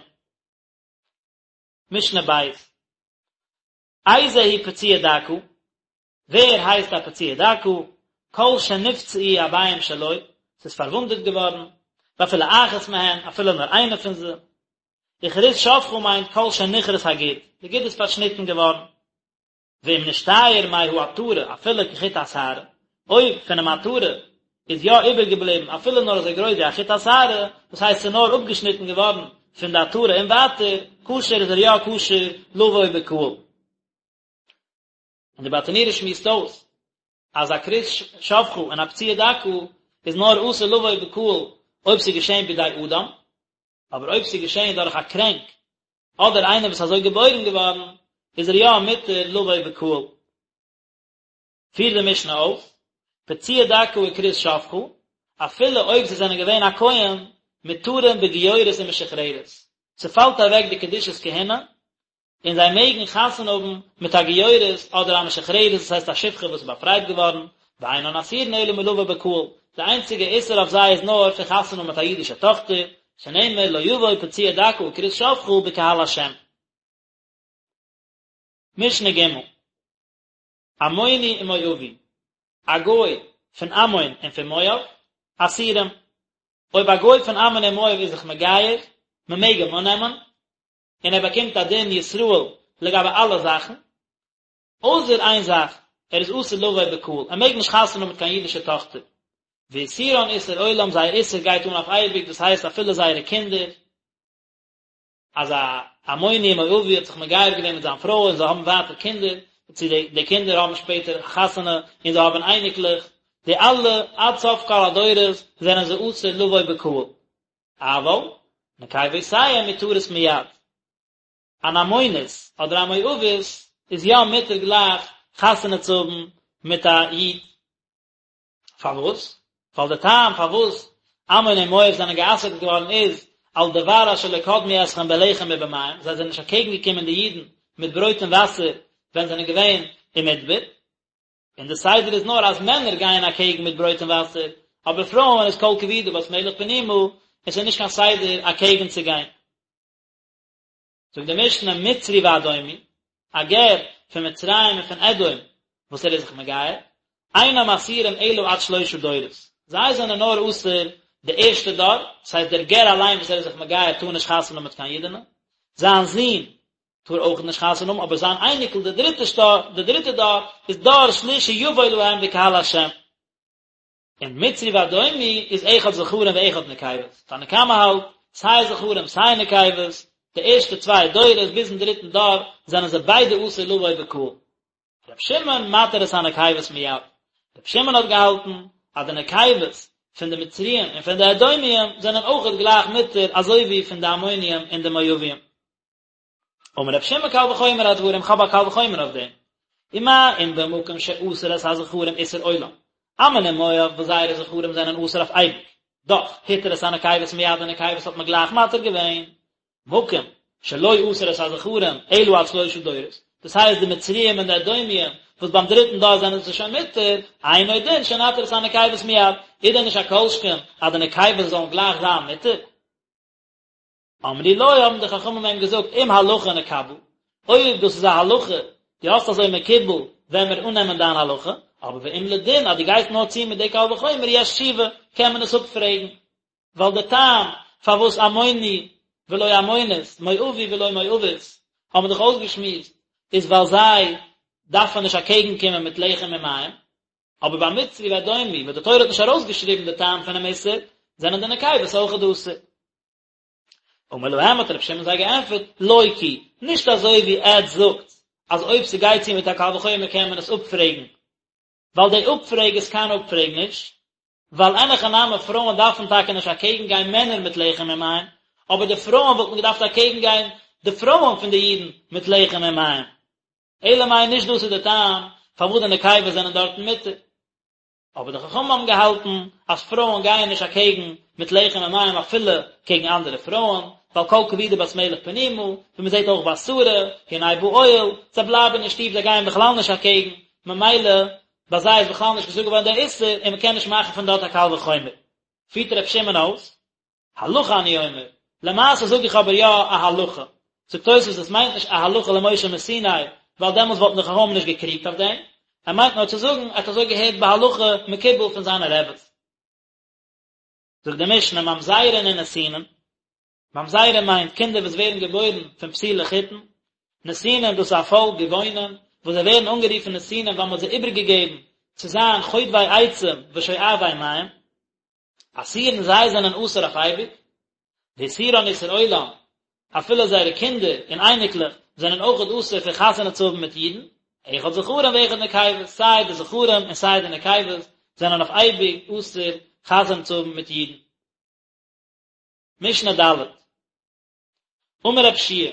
משנה בית. איזהו פצוע דכא, ווער הייסט א פצוע דכא? כל שנפצעו הביעים שלו, ס'איז פארוואונדעט געווארן, ואפילו אחת מהן, אפילו נאר איינע פון זיי. וכרות שפכה מיינט כל שנכרת הגיד, די גיד איז פארשניטן געווארן. ואם נשתייר מהעטרה אפילו כחוט השערה, אויב פונעם עטרה איז יא איבערגעבליבן אפילו נאר אזוי גרויס ווי א חוט השערה, דאס הייסט ס'איז נאר אפגעשניטן געווארן פון די עטרה און ווייטער, כשר איז ער יא כשר לבוא בקהל. און די ברטנורא שמועסט אויס אז א כרות שפכה און א פצוע דכא איז נאר אסור לבוא בקהל אויב ס'איז געשען בידי אדם, אבער אויב ס'איז געשען דורך א קרענק אדער איינער וואס איז אזוי געבוירן געווארן, איז ער יא מותר לבוא בקהל. פירט די משנה אויס, פצוע דכא וכרות שפכה, אפילו אויב זיי זענען געווען א כהן, מותרים בגיורת ומשוחררת. ס'פאלט אוועק די קדושת כהונה, און זיי מעגן חתונה האבן מיט א גיורת אדער א משוחררת, דאס הייסט א שפחה וואס איז באפרייט געווארן, ואינן אסורין אלא מלבוא בקהל, די איינציגע איסור אויף זיי איז נאר פון חתונה האבן מיט א אידישע טאכטער, שנאמר לא יבוא פצוע דכא וכרות שפכה בקהל השם. משנה ג' עמוני ומואבי, א גוי פון עמון און פון מואב, אסורים, אויב א גוי פון עמון און מואב איז זיך מגייר, מען מעג אים אננעמען, און ער באקומט א דין ישראל לגבי אלע זאכן, אויסער איין זאך, ער איז אסור לבוא בקהל, ער מעג נישט חתונה האבן מיט קיין אידישע טאכטער, ואיסורן איסור עולם, זייער איסור גייט אן אויף אייביג, דאס הייסט אפילו זייערע קינדער, אז א עמוני ומואבי האט זיך מגייר געווען מיט זיין פרוי און זיי האבן ווייטער קינדער, צו די די קינדער האבן שפעטער חתונה און זיי האבן אייניקלעך, די אלע עד סוף כל הדורות זענען זיי אסור לבוא בקהל. אבל, נקבותיהם מותרות מיד. אן עמונית אדער א מואבית איז יא מותר גלייך חתונה צו האבן מיט א איד. פארוואס? ווייל די טעם פארוואס עמון און מואב זענען גע'אסר'ט געווארן איז. על דבר אשר לא קדמו אתכם בלחם ובמים, זיי זענען נישט אקעגן געקומען די אידן מיט ברויט און וואסער ווען זיי זענען געווען אין מדבר, און די סדר איז נאר אז מענער גייען אקעגן מיט ברויט און וואסער, אבער פרויען איז כל כבודה בת מלך פנימה, און ס'איז נישט קיין סדר אקעגן צו גיין. זאגט די משנה מצרי ואדומי, א גר פון מצרים און פון אדום וואס ער איז זיך מגייר, אינם אסורים אלא עד שלושה דורות, זיי זענען נאר אסור די ערשטע דור, דאס הייסט דער גר אליין וואס ער איז זיך מגייר טאר נישט חתונה האבן מיט קיין אידענע, זיין זון טאר אויך נישט חתונה האבן, אבער זיין אייניקל די דריטע די דריטע דור איז דור שלישי יבוא להם בקהל השם. און מצרי ואדומי איז אחד זכרים ואחד נקבות, תנא קמא האלט, סיי זכרים סיי נקבות, די ערשטע צוויי דורות ביזן דריטן דור זענען זיי ביידע אסור לבוא בקהל. ר' שמעון מתיר את הנקבות מיד, ר' שמעון האט געהאלטן אז די נקבות פון די מצריים און פון די אדומיים זענען אויכעט גלייך מותר אזוי ווי פון די עמוניים און די מואביים. אמר ר' שמעון קל וחומר הדברים, כ'האב א קל וחומר אויף דעם. ומה אם במקום שאסר את הזכרים איסור עולם, עמון און מואב וואס זייערע זכרים זענען אסור אויף אייביג, דאך התיר את הנקבות מיד די נקבות האט מען גלייך מתיר געווען. מקום שלא אסר את הזכרים אלא עד שלושה דורות, דאס הייסט די מצריים און די אדומיים וואס ביים דריטן דור זענען זיי שוין מותר, אינו דין שנתיר את הנקבות מיד, איז דען נישט א כל שכן אז די נקבות זאלן גלייך זיין מותר? אמרו לו האבן די חכמים אים געזאגט אם הלכה נקבל, אויב דאס איז א הלכה, דו האסט אזוי מקובל, וועלן מיר אננעמען דיין הלכה, אבער ואם לדין אז דו גייסט נאר צו מיט די קל וחומר יש תשובה, קען מען עס אפפרעגן, ווייל די טעם פארוואס עמוני ולא עמונית, מואבי ולא מואבית, האבן מיר דאך אויסגעשמועסט, איז ווייל זיי דארפן נישט אקעגן קומען מיט לחם און מים, אבער ביי מצרי ואדומי וואס די תורה האט נישט ארויסגעשריבן די טעם פונעם איסור, זענען די נקבות אויכעט אסור. אמר להם האט רבי שמעון זיי געענטפערט, לא כי, נישט אזוי ווי עטץ זאגטס אז אויב ס'גייט צו מיט א קל וחומר קען מען עס אפפרעגן, ווייל די אפפרעג איז קיין אפפרעג נישט, ווייל אין הכי נמי פרויען דארפן טאקע נישט אקעגן גיין מענער מיט לחם און מים, אבער די פרויען וואלטן געדארפט אקעגן גיין די פרויען פון די אידן מיט לחם און מים. אלא מאי נישט דאס איז די טעם פארוואס די נקבות זענען דארטן מותר. אבער די חכמים האבן געהאלטן אז פרויען גייען נישט אקעגן מיט לחם און מים אפילו קעגן אנדערע פרויען, ווייל כל כבודה בת מלך פנימה, ווי מען זעט אויך ביי שרה, הנה באוהל, זיי בלייבן אין שטוב זיי גייען בכלל נישט אקעגן, ממילא ביי זיי איז בכלל נישט געזאגט געווארן דער איסור און מען קען נישט מאכן פון דארט א קל וחומר. פירט ר' שמעון אויס, הלכה אני אומר, למעשה זאג איך אבער יא א הלכה. זאגט תוספות עס מיינט נישט א הלכה למשה מסיני, ווייל דעמאלטס וואלטן די חכמים נישט געקריגט אויף דעם, ער מיינט נאר צו זאגן ער האט אזוי געהערט בהלכה מקובל פון זיינע רעבעס. זאגט די משנה ממזרין ונתינין, ממזרים מיינט קינדער וואס ווערן געבוירן פון פסולי חיתון, נתינים דאס איז א פאלק גבעונים וואס זיי ווערן אנגערופן נתינים ווייל מען האט זיי איבערגעגעבן צו זיין חוטבי עצים ושואבי מים, אסורין זיי זענען אסור אויף אייביג, ואיסורן איסור עולם, אפילו זייערע קינדער און אייניקלעך זענען אויכעט אסור פון חתונה צו האבן מיט אידן, אחד זכרים ואחד נקבות, סיי די זכרים און סיי די נקבות זענען אויף אייביג אסור חתונה צו האבן מיט אידן. משנה ד'. אמר רב שיע,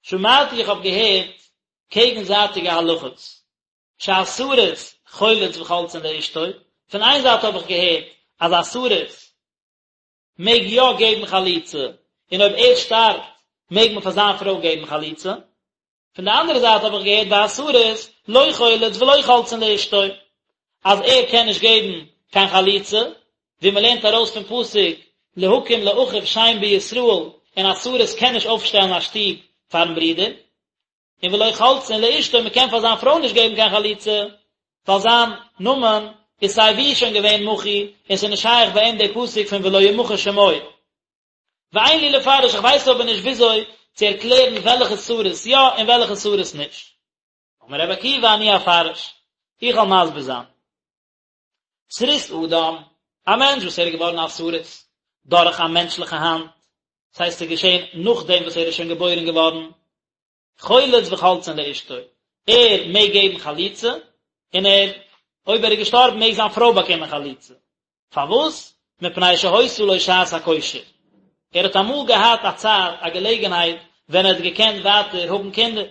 שמעתי איך האב געהערט קעגנזייטיגע הלכות, שהסריס חולץ וחולצין לאשתו, פון איין זייט האב איך געהערט אז א סריס מעג יא געבן חליצה, און אויב ער שטארבט מעג מען פאר זיין פרוי געבן חליצה, פון די אנדערע זייט האב איך געהערט והסריס לא חולץ ולא חולצין לאשתו, אז ער קען נישט געבן קיין חליצה, ווי מען לערנט ארויס פון פסוק להקים לאחיו שם בישראל, און א סריס קען נישט אויפשטעלן א שטוב פארן ברודער. און ולא חולצין לאשתו מען קען פאר זיין פרוי נישט געבן קיין חליצה, ווייל זיין נאמען איז סיי ווי שוין געווען מחוי, און ס'איז נישט שייך ביי אים די פסוק פון ולא ימחה שמו. ואין לי לפרש, איך ווייס אבער נישט וויאזוי צו ערקלערן וועלכע סריס יא און וועלכע סריס נישט. אמר רבי עקיבא אני אפרש, איך וועל מסביר זיין. סריס אדם, א מענטש וואס ער איז געווארן א סריס דורך א מענטשליכע האנט, דאס הייסט ס'איז געשען נאכדעם וואס ער איז שוין געבוירן געווארן, חולץ וחולצין לאשתו, ער מעג געבן חליצה, און ער, אויב ער איז געשטארבן מעג זיין פרוי באקומען חליצה. פארוואס? מפני שהיתה לו שעת הכושר. ער האט אמאל געהאט א צייט, א געלעגנהייט, ווען ער האט געקענט ווייטער האבן קינדער.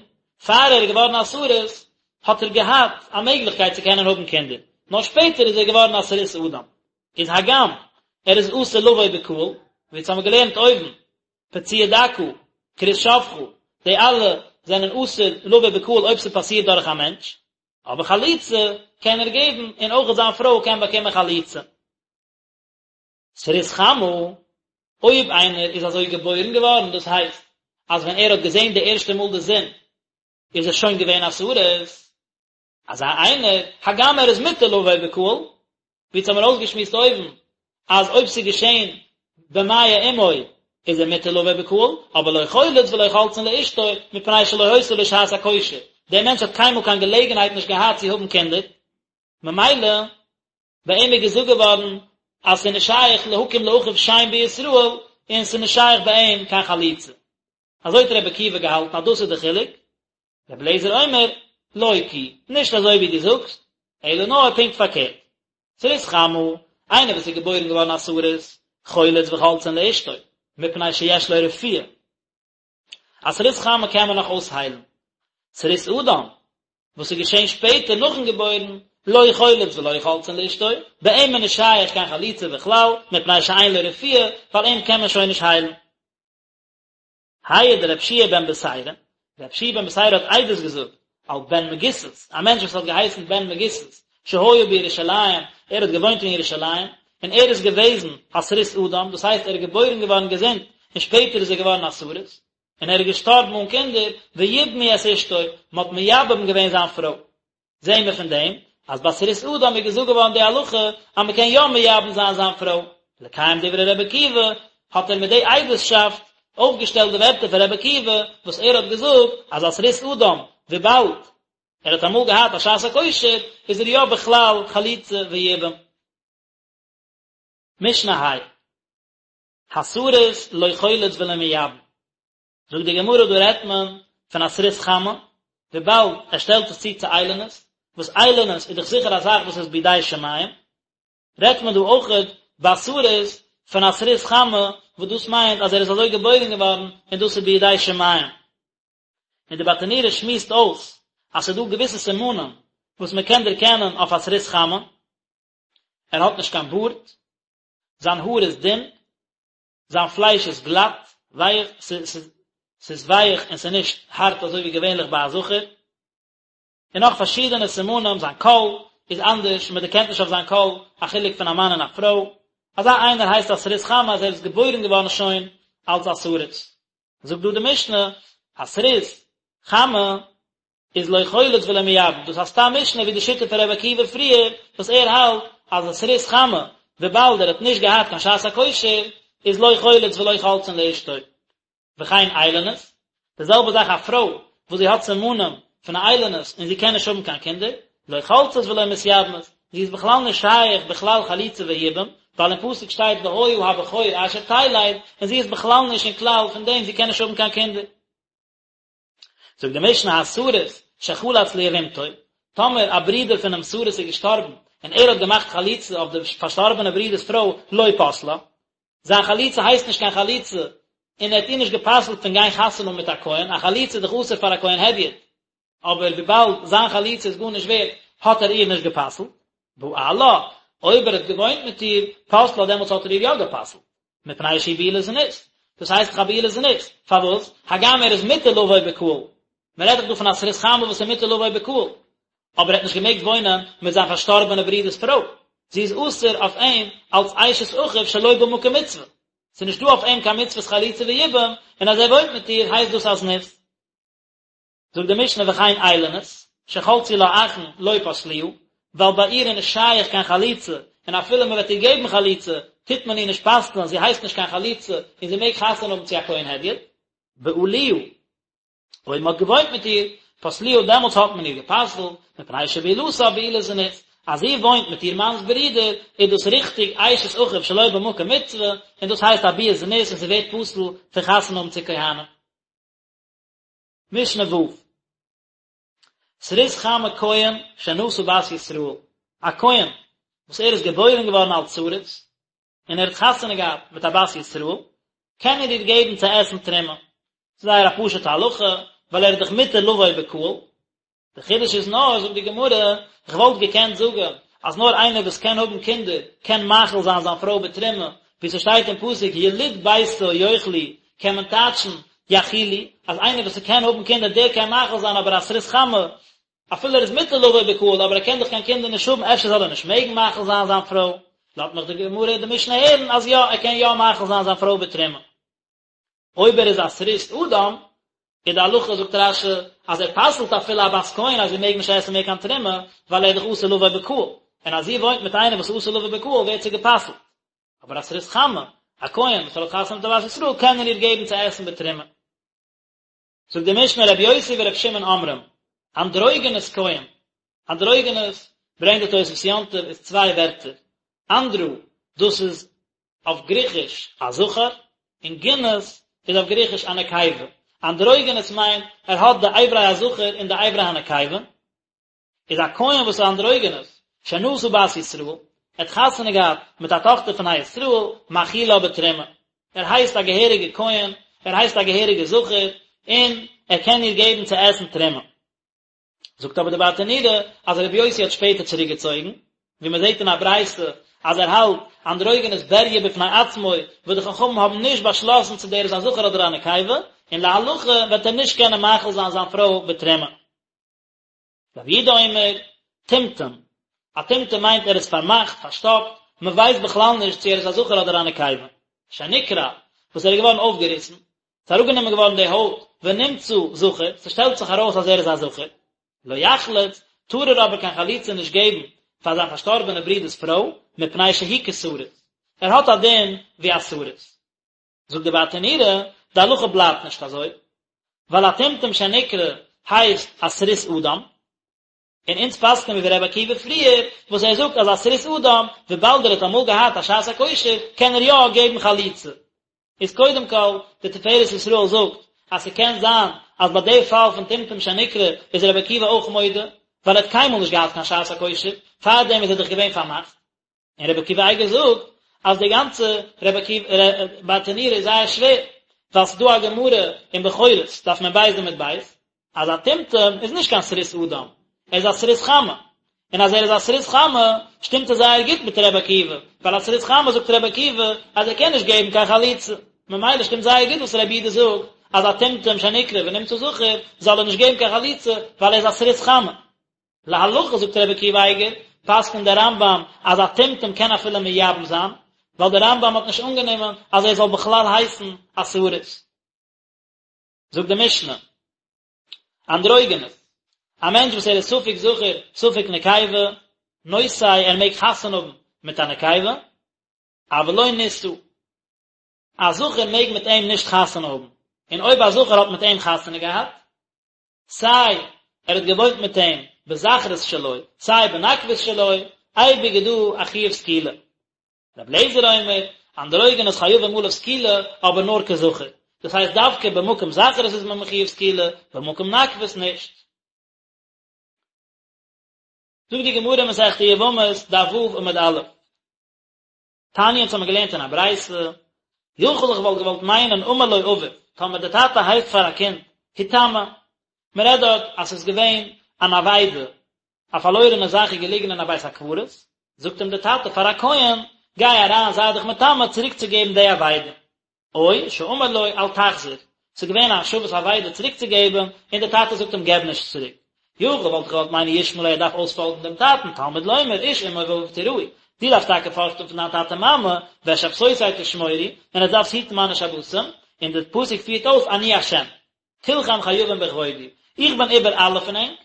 פאר ער איז געווארן א סריס, האט ער געהאט א מעגליכקייט צו קענען האבן קינדער, נאר שפעטער איז ער געווארן א סריס אדם. איז הגם ער איז אסור לבוא בקהל, ווי אונז האבן געלערנט אויבן, פצוע דכא, כרות שפכה, די אלע זענען אסור לבוא בקהל אויב ס'פאסירט דורך א מענטש, אבער חליצה קען ער געבן און אויכעט זיין פרוי קען באקומען חליצה. סריס חמה, אויב איינער איז אזוי געבוירן געווארן, דאס הייסט אז ווען ער האט געזען די ערשטע מאל די זון איז ער שוין געווען א סריס, אזא איינער, הגם ער איז מותר לבוא בקהל, ווי אונז האמיר אויסגעשמועסט אויבן, אז אויב ס'איז געשען במעי אמו איז ער מותר לבוא בקהל, אבער לא חולץ ולא חולצין לאשתו, מפני שלא היתה לו שעת הכושר, דער מענטש האט קיינמאל קיין געלעגנהייט נישט געהאט צו האבן קינדער, ממילא ביי אים איז געזאגט געווארן אז ס'איז נישט שייך להקים לאחיו שם בישראל, און ס'איז נישט שייך ביי אים קיין חליצה. אזוי האט רבי עקיבא געהאלטן אז דאס איז די חילוק, רבי אליעזר אומר, לא כי, נישט אזוי ווי דו זאגסט, אלא נאר פונקט פארקערט. סריס חמה, איינער וואס איז געבוירן געווארן א סריס, חולץ וחולצין לאשתו, מפני שיש לו רפואה. א סריס חמה קען מען נאך אויסהיילן. סריס אדם, וואס איז געשען שפעטער נאכן געבוירן, לא חולץ ולא חולצין לאשתו, ביי אים איז נישט שייך קיין חליצה בכלל, מפני שאין לו רפואה, ווייל אים קען מען שוין נישט היילן. העיד רב שיע בן בתירא, רב שיע בן בתירא האט עדות געזאגט על בן מגיסס, א מענטש וואס האט געהייסן בן מגיסס, שהיה בירושלים, ער האט געוואוינט אין ירושלים, און ער איז געוועזן א סריס אדם, דאס הייסט ער איז געבוירן געווארן געזונט, און שפעטער איז ער געווארן א סריס, און ער איז געשטארבן אן קינדער, ויבמו את אשתו, מען האט מייבם געווען זיין פרוי. זעהן מיר פון דעם אז ביי סריס אדם איז געזאגט געווארן די הלכה אז מען קען יא מייבם זיין זיין פרוי, לקיים דברי רבי עקיבא, האט ער מיט די עדות'שאפט אויפגעשטעלט די ווערטער פון רבי עקיבא וואס ער האט געזאגט אז א סריס אדם וויבאלד ער האט אמאל געהאט א שעת הכושר איז ער יא בכלל חליצה ויבום. משנה ה'. הסריס לא חולץ ולא מייבם. זאגט די גמרא דא רעדט מען פון א סריס חמה, וויבאלד ער שטעלט עס צו צו איילונית, וואס איילונית איז דאך זיכער א זאך וואס איז בידי שמים, רעדט מען דא אויכעט ביי סריס פון א סריס חמה, וואס דאס מיינט אז ער איז אזוי געבוירן געווארן און דאס איז בידי שמים. און די ברטנורא שמועסט אויס אז ס'איז דא געוויסע סימנים וואס מען קען דערקענען אויף א סריס חמה, ער האט נישט קיין בארד, זיין האר איז דין, זיין פלייש איז גלאט, ווייך, ס'איז ווייך און ס'איז נישט הארט אזוי ווי געווענליך ביי א זכר, און נאך פארשידענע סימנים, זיין קול איז אנדערש, מען דערקענט נישט אויף זיין קול א חילוק פון א מאן און א פרוי, אזא איינער הייסט א סריס חמה אז ער איז געבוירן געווארן שוין אלס א סריס. זאגט דא די משנה, א סריס חמה איז לא חולץ ולא מייבם, דאס איז א סתם משנה ווי די שיטה פון ר' עקיבא פריער, וואס ער האלט אז א סריס חמה, וויבאלד ער האט נישט געהאט קיין שעת הכושר, איז לא חולץ ולא חולצין לאשתו. וכן איילונית, די זעלבע זאך א פרוי וואס זי האט סימנים פון א איילונית און זי קען נישט האבן קיין קינדער, לא חולצת ולא מתייבמת, זי איז בכלל נישט שייך בכלל חליצה ויבום, ווייל אין פסוק שטייט והיה הבכור אשר תלד, און זי איז בכלל נישט אין כלל פון דעם זי קען נישט האבן קיין קינדער. זאגט די משנה הסריס שחלץ ליבמתו, טאמער א ברודער פונעם סריס איז געשטארבן און ער האט געמאכט חליצה אויף די פארשטארבענע ברודער'ס פרוי לא פסלה, זיין חליצה הייסט נישט קיין חליצה און ער האט איר נישט גע'פסל'ט פון גיין חתונה האבן מיט א כהן, א חליצה איז דאך אסור פאר א כהן הדיוט, אבער וויבאלד זיין חליצה איז גארנישט ווערט האט ער איר נישט גע'פסל'ט, בעלה, אויב ער האט געוואוינט מיט איר, פסלה דעמאלטס האט ער איר יא גע'פסל'ט. מפני שהיא בעילת זנות, דאס הייסט דאך א בעילת זנות, פארוואס? הגם ער איז מותר לבוא בקהל, מען רעדט דאך דא פון א סריס חמה וואס איז מותר לבוא בקהל, אבער ער האט נישט געמעגט וואוינען מיט זיין פארשטארבענע ברודער'ס פרוי, זי איז אסור אויף אים אלס אשת אחיו שלא במקום מצוה, ס'איז נישט דא אויף אים קיין מצוות חליצה ויבום, און אז ער וואוינט מיט איר הייסט דאס א זנות. זאגט די משנה וכן איילונית, שחלצו לה אחין לא פסלוה, ווייל ביי איר איז נישט שייך קיין חליצה, און אפילו מען וועט איר געבן חליצה, טוט מען איר נישט פסל'ן, זי הייסט נישט קיין חלוצה, און זי מעג חתונה האבן צו א כהן הדיוט. בעלוה, אויב מען האט געוואוינט מיט איר, פסלוה, דעמאלטס האט מען איר גע'פסל'ט, מפני שבעילתה בעילת זנות, אז זי וואוינט מיט איר מאנ'ס ברודער, איז דאס ריכטיג אשת אחיו שלא במקום מצוה, און דאס הייסט א ביאת זנות און זי ווערט פסול פון חתונה האבן צו כהנים. משנה ו'. סריס חמה כהן שנשא בת ישראל, א כהן וואס ער איז געבוירן געווארן אלס סריס, און ער האט חתונה געהאט מיט א בת ישראל, קען ער איר געבן צו עסן תרומה. ס'איז זייער א פשוט'ע הלכה, ווייל ער איז דאך מותר לבוא בקהל. די חידוש איז נאר, זאגט די גמרא, איך וואלט געקענט זאגן אז נאר איינער וואס קען האבן קינדער קען מאכיל זיין זיין פרוי בתרומה, ווי ס'שטייט אין פסוק יליד ביתו יאכלו, קען מען טייטשן יאכילו, אז איינער וואס ס'קען האבן קינדער דער קען מאכיל זיין אבער א סריס חמה, אפילו ער איז מותר לבוא בקהל אבער ער קען דאך קיין קינדער נישט האבן אפשר זאל ער נישט מעגן מאכיל זיין זיין פרוי, לאזט מיך די גמרא די משנה הערן אז יא ער קען יא מאכיל זיין זיין פרוי בתרומה. אויב ער איז א סריס אדם, איז די הלכה זאגט רש"י אז ער פסל'ט אפילו א בת כהן אז זי מעג נישט עסן מער קיין תרומה, ווייל ער איז דאך אסור לבוא בקהל, און אז זי וואוינט מיט איינעם וואס איז אסור לבוא בקהל ווערט זי גע'פסל'ט. אבער א סריס חמה, א כהן וואס ער האט חתונה מיט א בת ישראל קען ער איר געבן צו עסן בתרומה. זאגט די משנה רבי יוסי ורבי שמעון אומרים, אנדרוגינוס כהן, אנדרוגינוס ברענגט די תוספות יום טוב איז צוויי ווערטער, אנדרו דאס איז אויף גריכיש א זכר, און גינוס איז אויף גריכיש א נקבה, אנדרוגינוס מיינט ער האט די אברי הזכר און די אברי הנקבה, איז א כהן וואס איז אנדרוגינוס, שנשא בת ישראל, ער האט חתונה געהאט מיט א טאכטער פון א ישראל, מאכילה בתרומה, ער הייסט א געהעריגע כהן, ער הייסט א געהעריגע זכר, און ער קען איר געבן צו עסן תרומה. זאגט אבער די ברטנורא אז רבי יוסי האט שפעטער צוריק געצויגן, ווי מען זעט אין א ברייתא אז ער האלט אנדרוגינוס בריה בפני עצמו, וואס די חכמים האבן נישט באשלאסן צו דער איז א זכר אדער א נקבה, און להלכה וועט ער נישט קענען מאכיל זיין זיין פרוי בתרומה. רבי יהודה אומר, טומטום, א טומטום מיינט ער איז פארמאכט, פארשטאפט, מען ווייסט בכלל נישט צו ער איז א זכר אדער א נקבה. שנקרע, וואס ער איז געווארן אויפגעריסן, ס'איז אראפגענומען געווארן די הויט, ונמצא זכר, ס'שטעלט זיך ארויס אז ער איז א זכר. לא יחלוץ, טאר ער אבער קיין חליצה נישט געבן פאר זיין פארשטארבענע ברודער'ס פרוי, מפני שהוא כסריס. ער האט א דין ווי א סריס. זאגט די ברטנורא, די הלכה בלייבט נישט אזוי, ווייל א טומטום שנקרע הייסט א סריס אדם, און אונז פסק'ען מיר ווי רבי עקיבא פריער, וואס ער זאגט אז א סריס אדם, וויבאלד ער האט אמאל געהאט א שעת הכושר, קען ער יא געבן חליצה. איז קודם כל, די תפארת ישראל זאגט, אז ס'קען זיין אז ביי די פאל פון טומטום שנקרע איז רבי עקיבא אויך מודה, ווייל ער האט קיינמאל נישט געהאט קיין שעת הכושר, פארדעם איז ער דאך געווען פארמאכט. און רבי עקיבא אייגער זאגט אז די גאנצע רבי עקיבא ברטנורא איז זייער שווער, ווייל ס'איז דא א גמרא אין בכורות, דף מ"ב עמוד ב', אז א טומטום איז נישט קיין סריס אדם, ער איז א סריס חמה, און אז ער איז א סריס חמה שטימט עס זייער גוט מיט רבי עקיבא, ווייל א סריס חמה זאגט רבי עקיבא אז ער קען נישט געבן קיין חליצה, ממילא שטימט זייער גוט וואס רבי יהודה זאגט אז א טומטום שנקרע ונמצא זכר זאל ער נישט געבן קיין חליצה ווייל ער איז א סריס חמה. להלכה זאגט רבי עקיבא אייגער, פסק'נט דער רמב"ם אז א טומטום קען אפילו מייבם זיין, ווייל דער רמב"ם האט נישט אנגענומען אז ער זאל בכלל הייסן א סריס. זאגט די משנה, אנדרוגינוס, א מענטש וואס ער איז ספק זכר ספק נקבה, נושא ער מעג חתונה האבן מיט א נקבה, אבל לא נישא, א זכר מעג מיט אים נישט חתונה האבן, און אויב א זכר האט מיט אים חתונה געהאט, סיי ער האט געוואוינט מיט אים בזכרות שלו סיי בנקבות שלו, אייביג איז דא א חיוב סקילה. רבי אליעזר אומר, אנדרוגינוס חייבים עליו סקילה, אבער נאר כזכר. דאס הייסט דווקא במקום זכרות איז מען מחויב סקילה, במקום נקבות נישט. זאגט די גמרא מסכת יבמות, דף ו' עמוד א'. תניא אונז האמיר געלערנט אין א ברייתא, יכול איך וואלט געוואלט מיינען אמר לו אביו, טאמער די טאטע הייסט פאר א קינד, היטמא, מען רעדט דארט אז ס'איז געווען אן אבידה, א פארלוירענע זאך איז געליגן אין א בית הקברות, זאגט אים די טאטע פאר א כהן, גיי אריין זיי דיך מטמא צוריקצוגעבן די אבידה. או שאמר לו אל תחזיר, ס'איז געווען א השבת אבידה צוריקצוגעבן, און דער טאטע זאגט אים געב נישט צוריק. יכול וואלט איך געוואלט מיינען ישמע לו ער דארף אויספאלגן דעם טאטן, תלמוד לומר איש אמו ואביו תיראו, דו דארפסט טאקע פארכטן פון דיין טאטע מאמע, ואת שבתותי תשמורו, און עטס דארפסט היטן מיינע שבתים, און דער פסוק פירט אויס אני השם. כולכם חייבים בכבודי, איך בין איבער אלע פון ענק,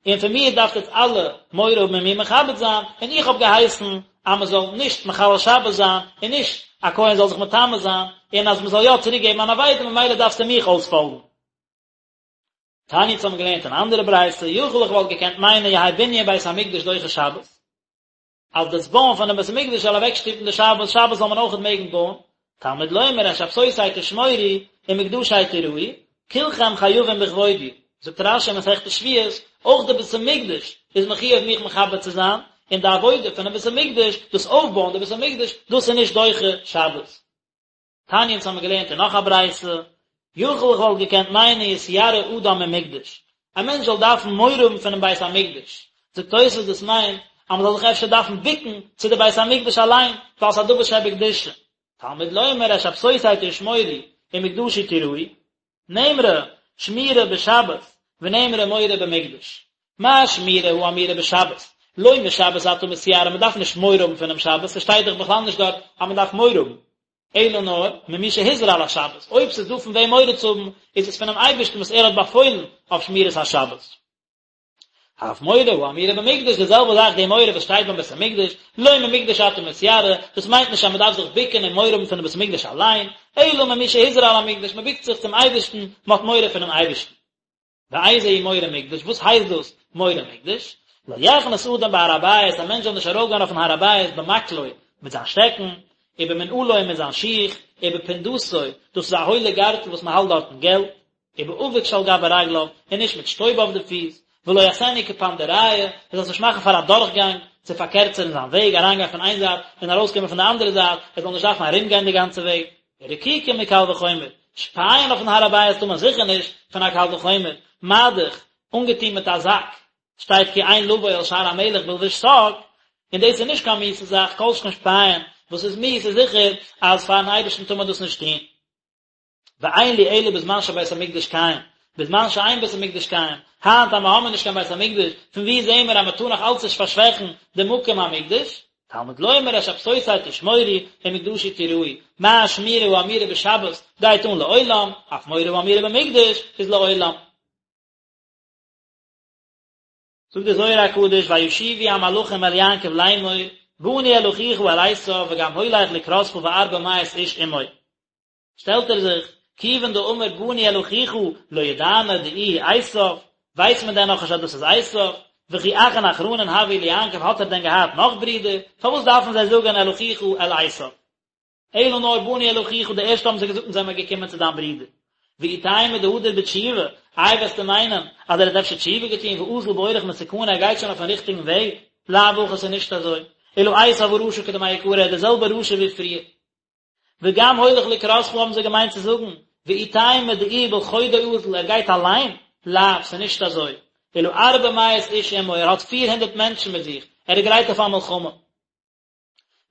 און פון מיר דארפט עטס אלע מורא האבן און מיר מכבד זיין, און איך האב געהייסן אז מען זאל נישט מחלל שבת זיין, און נישט א כהן זאל זיך מטמא זיין, און אז מען זאל יא צוריק געבן אן אבידה, ממילא דארפסטו מיך אויספאלגן. תניא אונז האבן געלערנט אן אנדערע ברייתא, יכול איך וואלט געקענט מיינען יהא בנין בית המקדש דוחה שבת, אז דאס בויען פונעם בית המקדש זאל אוועקשטופן די שבת, שבת זאל מען אויכעט מעגן בויען, תלמוד לומר את שבתותי תשמורו ומקדשי תיראו, כולכם חייבים בכבודי, זאגט רש"י אין מסכת שבועות, אויך די בית המקדש איז מחויב מיך מכבד צו זיין, און די עבודה פונעם בית המקדש, דאס אויפבויען די בית המקדש, דאס איז נישט דוחה שבת. תניא אונז האמיר געלערנט אין נאך א ברייתא, יכול איך וואלט געקענט מיינען יתיירא אדם ממקדש, א מענטש זאל דארפן מורא האבן פונעם בית המקדש, זאגט תוספות דאס מיינט אז מען זאל זיך אפשר דארפן בוקן צו די בית המקדש אליין, ווייל ס'איז א דבר שבקדושה. תלמוד לומר את שבתותי תשמורו ומקדשי תיראו, נאמרה שמירה בשבת ונאמרה מורא במקדש. מה שמירה האמורה בשבת? לא משבת אתה מתיירא, מען דארף נישט מורא האבן פונעם שבת, ס'שטייט דאך בכלל נישט דארט אז מען דארף מורא האבן, אלא נאר ממי שהזהיר על השבת, אויב ס'איז דא פון וועם מורא צו האבן, איז עס פונעם אייבערשטן וואס ער האט באפוילן אויף שמירת השבת. אף מורא האמורה במקדש, די זעלבע זאך די מורא וואס שטייט ביים בית המקדש, לא ממקדש אתה מתיירא, דאס מיינט נישט אז מען דארף זיך בוקן און מורא האבן פונעם בית המקדש אליין, אלא ממי שהזהיר על המקדש, מען בוקט זיך צום אייבערשטן, מען האט מורא פונעם אייבערשטן. ואיזה הוא מורא מקדש, וואס הייסט דאס מורא מקדש? לא יכנס אדם בהר הבית, א מענטש זאל נישט ארויפגיין אויפן הר הבית במקלו, מיט זיין שטעקן, ובמנעלו מיט זיין שיך, ובפונדתו, דאס איז א הוילע גארטל וואס מען האלט דארטן געלט, ובאבק שעל גבי רגליו, און נישט מיט שטויב אויף די פיס, ולא יעשנו כפנדריא, ער זאל עס נישט מאכן פאר א דורכגאנג, צו פארקערצערן זיין וועג, אריינגיין פון איין זייט און ארויסקומען פון די אנדערע זייט, ער זאל נישט דארפן ארומגיין די גאנצע וועג. רקיקה מקל וחומר, שפייען אויפן הר הבית טאר מען זיכער נישט, פון א קל וחומר, מה דאך, אנגעטון מיט א זאק, שטייט כי אין לבוא אל שער המלך בלבוש שק, און דאס איז נישט קיין מיאוסע זאך, כל שכן שפייען, וואס איז מיאוס איז זיכער אז פארן אייבערשטן טאר מען דאס נישט טון. ואין לי אלא בזמן שבית המקדש קיים, בזמן שאין בית המקדש קיים, היינט אז מ'האמיר נישט קיין בית המקדש, פון וואו זעהן מיר אז מ'טאר נאך אלץ נישט פארשוועכן די מקום המקדש? תלמוד לומר את שבתותי תשמורו ומקדשי תיראו, מה שמירה האמורה בשבת גייט אן לעולם, אף מורא האמורה במקדש איז לעולם. זאגט דער זוהר הקדוש וישובו המלאכים אל יעקב לאמור באנו אל אחיך אל עשו וגם הולך לקראתך וארבע מאות איש עמו. שטעלט ער זיך, כיוון דאמר באנו אל אחיך לא ידענא דאיהו עשיו, ווייסט מען דען נאכנישט אז דאס איז עשיו? וכי אחין אחרנין הוו ליעקב האט ער דען געהאט נאך ברידער? פארוואס דארפן זיי זאגען אל אחיך אל עשיו? אלא נאר באנו אל אחיך די ערשטע האבן זיי געזאגט אונז זעמער געקומען צו דיין ברודער. ואי תימא דהדר בתשובה, איי וועסטו מיינען אז ער האט אפשר תשובה געטון ואזיל באורח מתקנא ער גייט שוין אויפן ריכטיגן וועג? לאו הכי ס'איז נישט אזוי, אלא עשיו הרשע כדמעיקרא ער איז דער זעלבער רשע ווי פריער. וגם הולך לקראתך האבן זיי געמיינט צו זאגן, ואי תימא דאיהו בלחודוי אזיל, ער גייט אליין? לאו, ס'איז נישט אזוי. אלא ארבע מאות איש עמו, ער האט פיר הונדערט מענטשן מיט זיך, ער איז גרייט אויף א מלחמה.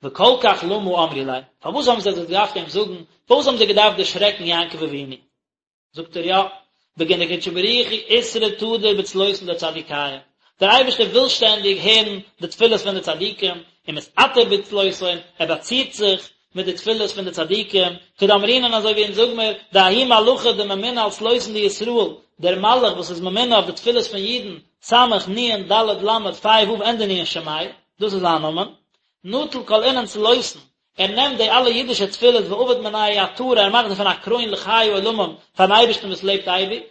וכל כך למה אמרו ליה, פארוואס האבן זיי דאס געדארפט אים זאגן, פארוואס האבן זיי געדארפט דערשרעקן יעקב אבינו? זאגט ער יא, בגין דקודשא בריך הוא אתרא תדיר בצלותין דצדיקיא, דער אייבערשטער וויל שטענדיג הערן די תפילות פון די צדיקים, ומתעטר בצלותהון, ער באצירט זיך מיט די תפילות פון די צדיקים, כדאמרינן אזוי ווי אונז זאג מיר, דההוא מלאכא דממונה על צלותין דישראל, דער מלאך וואס איז ממונה אויף די תפילות פון אידן, סמך נון ד' למד פא ו' ענדע נון שמיה, דאס איז זיין נאמען, נטיל כל אינון צלותין, ער נעמט די אלע אידישע תפילות ועביד מינייהו עטרה, ער מאכט דערפון א קרוין לחיי עולמים פארן אייבערשטן וואס לעבט אייביג,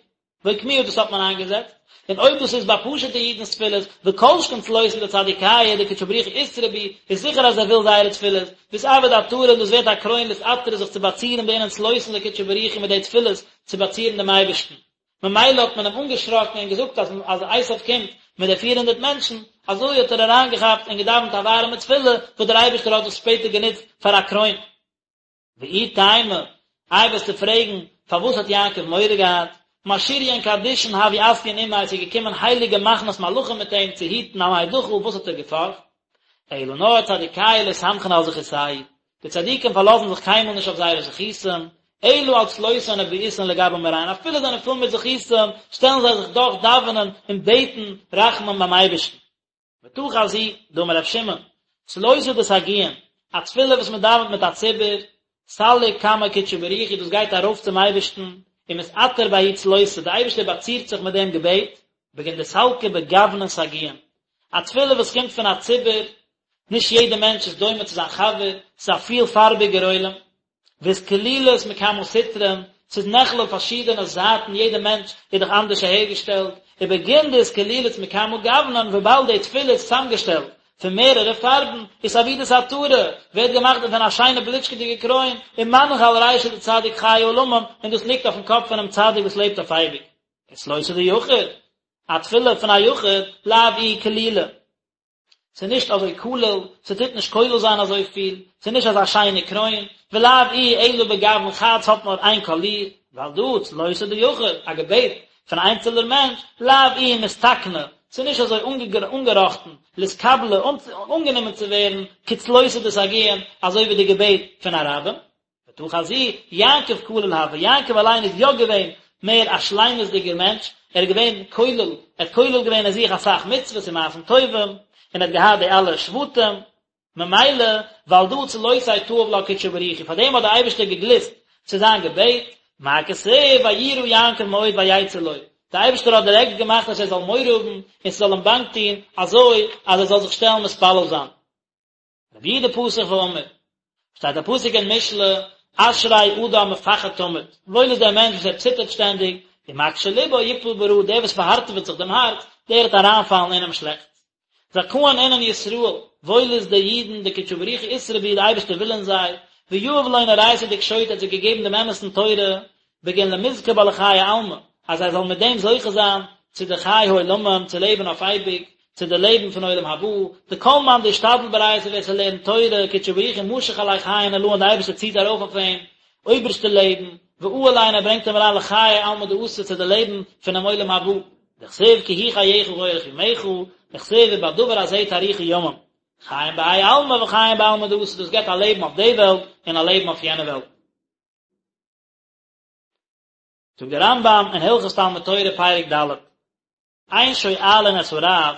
ואוקמוה דאס האט מען איינגעזעצט, און אויב דאס איז ביי פשוטע אידנ'ס תפילות, וכל שכן צלותין דצדיקיא דקודשא בריך הוא אתרעי בהו, איז זיכער אז ער וויל זייערע תפילות, ואתעביד עטרה און דאס ווערט א קרוין לאתעטרא זיך צו באצירן באינון צלותין דקודשא בריך הוא מיט די תפילות צו באצירן דעם אייבערשטן. ממילא האט מען אים אנגעשראקן און געזאגט אז אז עשיו קומט מיט די פיר הונדערט מענטשן, אזוי האט ער אריינגעכאפט און געדאווענט א ווארעמע תפילה וואס דער אייבערשטער האט דאס שפעטער גענוצט פאר א קרוין. ואי תימא, איי וועסטו פרעגן, פארוואס האט יעקב מורא געהאט? משריין קדישין הוו אתיין עמיה, ס'איז געקומען הייליגע מחנות מלאכים מיט אים צו היטן אמאי דחיל, וואס האט ער געפארכט? אלא נאר צדיקיא לא סמכין על זכותייהו, די צדיקים פארלאזן זיך קיינמאל נישט אויף זייערע זכותים, אלא על צלותהון ובעותהון לגבי מאריהון, אפילו זיי זענען פול מיט זכותים, שטעלן זיי זיך דאך דאווענען און בעטן רחמים ביים אייבערשטן. ותא חזי, דאמר ר' שמעון, צלותא דסגיאין, א תפילה וואס מען דאווענט מיט א ציבור, סליק קמי קודשא בריך הוא, דאס גייט ארויף צום אייבערשטן, ומתעטר בההוא צלותא, דער אייבערשטער באצירט זיך מיט דעם געבעט, בגין דסלקא בגוונין סגיאין, א תפילה וואס קומט פון א ציבור, נישט יעדער מענטש איז דומה צו זיין חבר, ס'איז א פילפארביגער עולם, ואתכלילת מכמה סטרין, ס'איז נכלל פארשידענע זייטן, יעדער מענטש איז דאך אנדערש אהערגעשטעלט, ובגין דאתכלילת מכמה גוונין, וויבאלד די תפילה איז צוזאמגעשטעלט פון מערערע פארבן, אתעבידת עטרה, ווערט געמאכט דערפון א שיינע בליטשקעדיגע קרוין, ומנח על רישא דצדיק חי עולמים, און דאס ליגט אויפן קאפ פונעם צדיק וואס לעבט אויף אייביג. וצלותא דיחיד, א תפילה פון א יחיד, לאו איהי כלילא. ס'איז נישט אזוי כולל, ס'טוט נישט כולל זיין אזויפיל, ס'איז נישט אזא שיינע קרוין, ולאו איהי אלא בגוון חד ס'האט נאר איין קאליר, ועל דא צלותא דיחיד, א געבעט פון א איינצעלער מענטש, לאו איהי מתתקנא, ס'איז נישט אזוי אנגעראכטן, לאתקבלא, אנגענומען צו ווערן, כצלותא דסגיאין, אזוי ווי די געבעט פון א רבים. ותא חזי, יעקב כליל הוה, יעקב אליין איז יא געווען מער א שלימות'דיגער מענטש, ער איז געווען כולל, ער האט כולל געווען אין זיך אסאך מצוות און מעשים טובים, און ער האט געהאט די אלע שבטים, ממילא, ועל דא צלותיה תאיב לה קודשא בריך הוא, פאר דעם האט דער אייבערשטער געגליסט צו זיין געבעט, מה כתיב ויירא יעקב מאוד ויצא לו, דער אייבערשטער האט דירעקט געמאכט אז ער זאל מורא האבן און ס'זאל אים באנג טון, אזוי אז ער זאל זיך שטעלן מתפלל זיין. רבי יהודה פתח ואמר, שטייט א פסוק אין משלי, אשרי אדם מפחד תמיד, וואויל איז דער מענטש וואס ער ציטערט שטענדיג, ומקשה לבו יפול ברעה, דער וואס פארהארטעוועט זיך דעם הארץ, דער וועט אריינפאלן אינעם שלעכטס. זכאין אינון ישראל, וואויל איז די אידן, דקודשא בריך הוא אתרעי בהו, די אייבערשטער וויל אין זיי, ויהב לון אורייתא דקשוט, ער האט זיי געגעבן דעם אמת'ן תורה, בגין למזכי בה לחיי עלמא, אז זיי זאלן מיט דעם זוכה זיין צו די חיי העולמים, צו לעבן אויף אייביג, צו די לעבן פון עולם הבא, דכל מאן דאשתדל באורייתא ווער ס'לערנט תורה, קודשא בריך הוא משיך עליה חיין עלאין די אייבערשטער ציט ארויף אויף אים אויבערשטע לעבן, ואעיל ליה און ער ברענגט אים אריין לחיי עלמא דאתי צו די לעבן פונעם עולם הבא, דכתיב כי הוא חייך ואורך ימיך, וכתיב ובדבר הזה תאריכו ימים, חיים בהאי עלמא וחיים בעלמא דאתי דאס געבט א לעבן אויף די וועלט און א לעבן אויף יענע וועלט. זאגט דער רמב"ם אין הלכות תלמוד תורה פרק ד', אין שואלין את הרב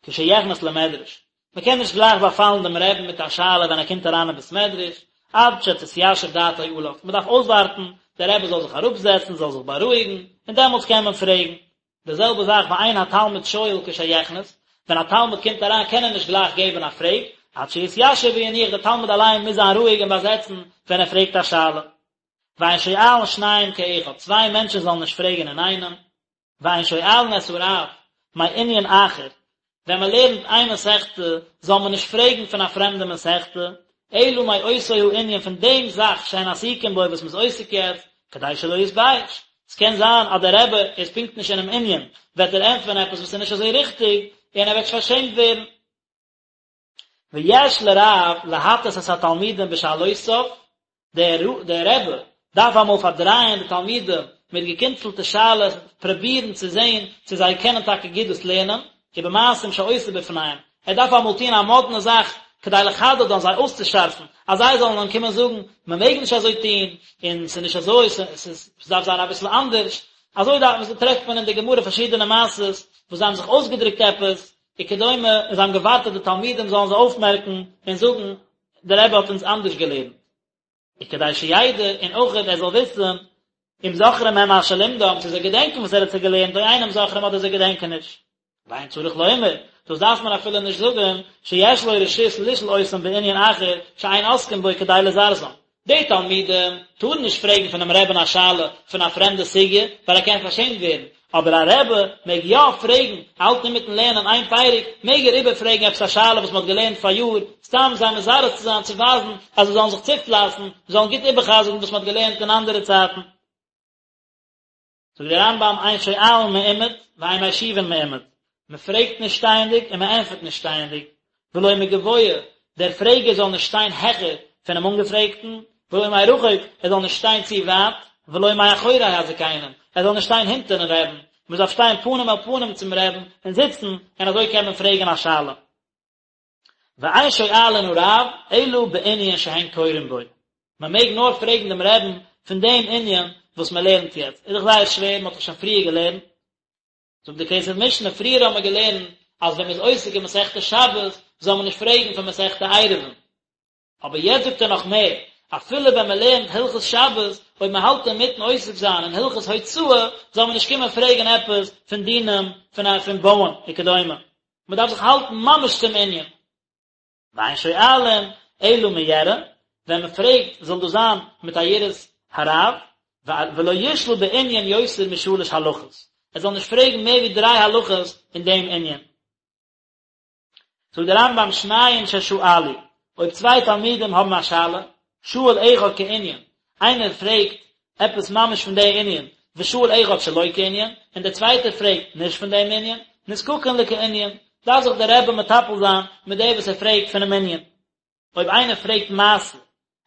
כשיכנס למדרש, מען קען נישט גלייך באפאלן דעם רעבן מיט א שאלה ווען ער קומט אריין אין בית מדרש, עד שתתיישב דעתו עליו, מען דארף אויסווארטן דער רבי זאל זיך אראפזעצן, זאל זיך בארואיגן, און דעמאלטס קען מען פרעגן. די זעלבע זאך ואין התלמיד שואל כשיכנס, ווען א תלמיד קומט אריין קען ער נישט גלייך געבן א פרעג, עד שיתיישב וינוח, דער תלמיד אליין מוז זיין רואיג און באזעצן ווען ער פרעגט א שאלה. ואין שואלין שניים כאחד, צוויי מענטשן זאלן נישט פרעגן אינאיינעם. ואין שואלין את הרב מענין אחר, ווען מען לערנט איין מסכתא זאל מען נישט פרעגן פון א פרעמדע מסכתא, אלא מאותו הענין פון דעם זאך שהן עסוקים בו וואס מען איז עוסק יעצט, כדי שלא יתבייש. עס קען זיין אז דער רבי איז פונקט נישט אינעם ענין, וועט ער ענטפערן עפעס וואס איז נישט אזוי ריכטיג, און ער וועט פארשעמט ווערן. ויש לרב להטעות את התלמידים בשאלותיו, דער דער רבי דארף אמאל פארדרייען די תלמידים מיט געקינצלטע שאלות, פרובירן צו זען צו זיי קענען טאקע גוט דאס לערנען, ובמעשים שעושה בפניהם, ער דארף אמאל טון א מאדנע זאך כדי לחדדן, זיי אויסצושארפן, אז זיי זאלן אים קומען זאגן, מען מעג נישט אזוי טון, און ס'איז נישט אזוי, ס'דארף זיין אביסל אנדערש, אזוי דארף, טרעפט מען אין די גמרא פארשידענע מעשות וואס זיי האבן זיך אויסגעדרוקט עפעס, וכדומה, און זיי האבן געווארט אז די תלמידים זאלן זיי אויפמערקן און זאגן, דער רבי האט אונז אנדערש געלערנט. וכדי שידע, און אויך ער זאל וויסן, אם זוכרים הם מה שלימדם, צו זיי געדענקען וואס ער האט זיי געלערנט, או אינם זוכרים אדער זיי געדענקען נישט. ואין צריך לומר, דאס דארף מען אפילו נישט זאגן, שיש לו רשות לשאול אותם בענין אחר שאין עוסקים בו כדי לזרזם. די תלמידים טארן נישט פרעגן פונעם רעבען א שאלה פון א פרעמדע סוגיא, ווייל ער קען פארשעמט ווערן, אבער א רבי מעג יא פרעגן, האלט אינמיטן לערנען איין פרק, מעג ער איבערפרעגן עפעס א שאלה וואס מען האט געלערנט פאריאר, סתם זיי מזרז צו זיין צו ווייזן אז זיי זאלן זיך צופלייסן, זאלן גוט איבערחזר'ן וואס מען האט געלערנט אין אנדערע צייטן. זאגט דער רמב"ם אין שואלין מעומד ואין משיבין מעומד, מען פרעגט נישט שטייענדיג און מען ענטפערט נישט שטייענדיג, ולא מגבוה, דער פרעגער זאל נישט שטיין העכער פונעם אנגעפרעגטן, ולא מרחוק, ער זאל נישט שטיין צו ווייט, ולא מאחורי הזקנים, ער זאל נישט שטיין הינטערן רעבן, מען דארף שטיין פנים אל פנים צום רעבן און זיצן, און אזוי קען מען פרעגן א שאלה. ואין שואלין הרב אלא בענין שהן קורין בו, מען מעג נאר פרעגן דעם רעבן פון דעם ענין וואס מען לערנט יעצט, איז דאך זייער שווער, מען האט דאך שוין פריער געלערנט, זאגט די כסף משנה, פריער האבן מיר געלערנט אז ווען מען איז עוסק אין מסכת שבת זאל מען נישט פרעגן פון מסכת עירובין, אבער יעצט זאגט ער נאך מער, אפילו ווען מען לערנט הלכות שבת, אויב מען האלט אינמיטן עוסק זיין אין הלכות הוצאה, זאל מען נישט קומען פרעגן עפעס פון דינים פון פון בויען וכדומה. מען דארף זיך האלטן ממש צום ענין. ואין שואלין אלא מיראה, ווען מען פרעגט זאל דאס זיין מיט א יראת הרב, ולא ישאל בענין יותר משלש הלכות, ער זאל נישט פרעגן מער ווי דריי הלכות אין דעם ענין. זאגט דער רמב"ם שניים ששאלו, אויב צוויי תלמידים האבן א שאלה, שאל אחד כענין, איינער פרעגט עפעס ממש פון די ענין, ושאל אחד שלא כענין, און דער צווייטער פרעגט נישט פון דעם ענין, נזקקין לכענין, דארף זיך דער רבי מטפל זיין מיט דער וואס ער פרעגט פונעם ענין. אויב איינער פרעגט מעשה,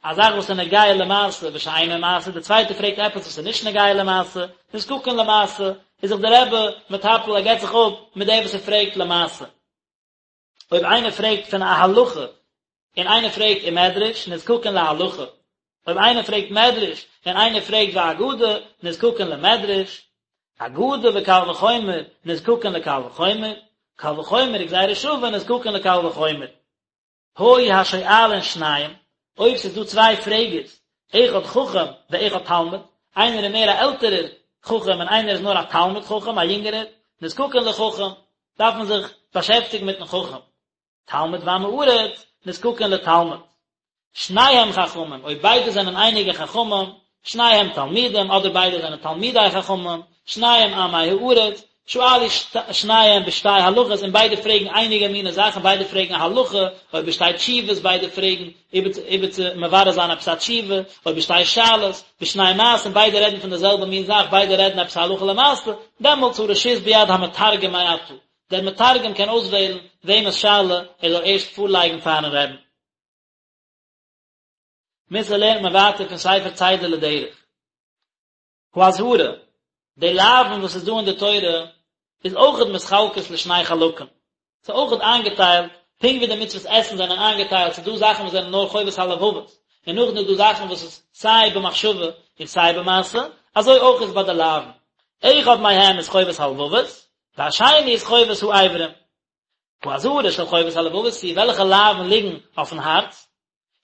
א זאך וואס איז נוגע למעשה ושאינו מעשה, דער צווייטער פרעגט עפעס וואס איז נישט נוגע למעשה, נזקקין למעשה, איז זיך דער רבי מטפל, ער געבט זיך אפ מיט דער וואס ער פרעגט למעשה. אויב איינער פרעגט פון א הלכה און איינער פרעגט אין מדרש, נזקקין להלכה. אויב איינער פרעגט מדרש און איינער פרעגט ואגדה, נזקקין למדרש. אגדה וקל וחומר, נזקקין לקל וחומר. קל וחומר וגזירה שווה, נזקקין לקל וחומר. היו השואלין שניים, אויב ס'איז דא צוויי פרעגערס, אחד חכם ואחד תלמיד, איינער איז מער א עלטערער חכם און איינער איז נאר א תלמיד חכם, א יונגערער, נזקקין לחכם, דארף מען זיך באשעפטיגן מיטן חכם. תלמיד ועם הארץ, נזקקין לתלמיד. שניהם חכמים, אויב ביידע זענען אייניגע חכמים, שניהם תלמידים, אדער ביידע זענען תלמידי חכמים, שניהם עמי הארץ, שאלו שניהם בשתי הלכות, און ביידע פרעגן אייניגע מיני זאכן, ביידע פרעגן א הלכה, או בשתי תשובות, ביידע פרעגן איבער צו מברר זיין עפעס א תשובה, או בשתי שאלות, בשני מעשים, ביידע רעדן פון די זעלבע מין זאך, ביידע רעדן עפעס א הלכה למעשה, דעמאלטס הרשות ביד המתרגם מעתה, דער מתרגם קען אויסוועלן וועמענס שאלה ער זאל ערשט פארלייגן פארן רבי'ן. מוסר לערנט מען ווייטער פון ספר צידה לדרך. האזהרה, די לאווין וואס איז דא אין די תורה איז אויכעט מתחלקות לשני חלקים, ס'איז אויכעט איינגעטיילט, פונקט ווי די מצוות עשין זענען איינגעטיילט, ס'איז דא זאכן וואס זענען נאר חובת הלבבות, און נאכדעם איז דא זאכן וואס איז סיי במחשבה און סיי במעשה, אזוי אויך איז ביי די לאווין. אחד מהם איז חובת הלבבות, והשני איז חובת האיברים. האזהרה של חובת הלבבות היא, וועלכע לאווין ליגן אויפן הארץ,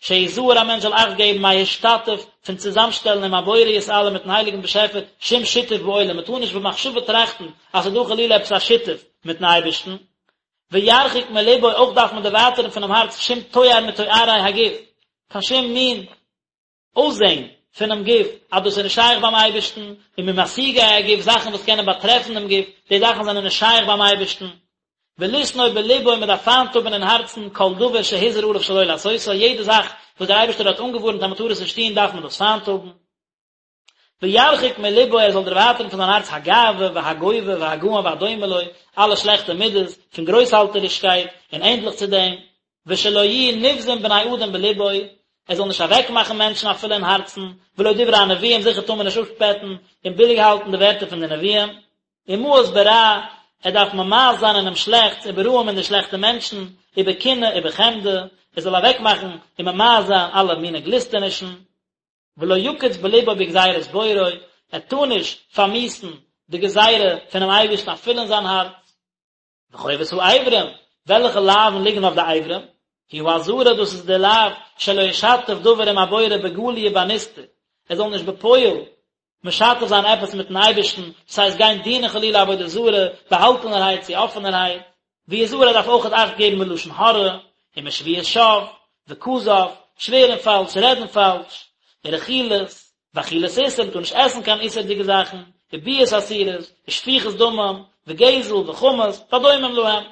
שיזהר א מענטש זאל אכט געבן מהשתתף פון צוזאמשטעלן עם הבורא יתעלה מיטן הייליגן באשעפער שום שיתוף בעולם, מען טאר נישט במחשבה טראכטן אז ס'איז דא חלילה עפעס א שיתוף מיטן אייבערשטן, וירחיק מלבו אויך דארף מען דערווייטערן פונעם הארץ שום תואר מתוארי הגוף, קיין שום מין אויסזען פונעם גוף, אז דאס איז נישט שייך ביים אייבערשטן, וממשיגי הגוף, זאכן וואס קענען באטרעפן דעם גוף, די זאכן זענען נישט שייך ביים אייבערשטן. ולשנוא בלבו, מען דארף פיינט האבן אין הארצן כל דבר שהוזהר עליו שלא לעשותו, יעדע זאך וואס דער אייבערשטער האט אנגעווארנט אז מען טאר עס נישט טון דארף מען דאס פיינט האבן. וירחיק מלבו ער זאל דערווייטערן פון זיין הארץ הגאווה והגובה והגאון והדומה לו, אלע שלעכטע מידות פון גרויסהאלטערישקייט און ענדליך צו דעם, ושלא יהיו נבזים בני אדם בלבו, ער זאל נישט אוועקמאכן מענטשן אפילו אין הארצן, ולא דברי הנביאים, זיכער טאר מען נישט אפשפעטן און ביליג האלטן די ווערטער פון די נביאים, ומאוס ברע, ער דארף ממאס זיין אינעם שלעכטס, וברעים אין די שלעכטע מענטשן, ובקנאה ובחמדה, ער זאל אוועקמאכן און ממאס זיין אלע מיני גליסטענישן. ולא יקיץ בלבו בגזירת בוראו, ער טאר נישט פארמיאוסן די גזירה פונעם אייבערשטן אפילו אין זיין הארץ. וחובת האיברים, וועלכע לאווין ליגן אויף די אברים? היא האזהרה, דאס איז די לאו שלא ישתף דבר עם הבורא בגלוי ובנסתר, ער זאל נישט בפועל משתף זיין עפעס מיטן אייבערשטן, דאס הייסט גיין דינען חלילה עבודה זרה, באהאלטענערהייט צו אפענערהייט, ויזהר ער דארף אויכעט אכט געבן מלשון הרע, ומשבועת שוא, וכזב, שווערן פאלש, רעדן פאלש, ורכילות, ואכילת איסור, מ'טאר נישט עסן קיין איסור'דיגע זאכן, וביאות אסורות, ושפיכות דמים, וגזל, וחמס, והדומים להם.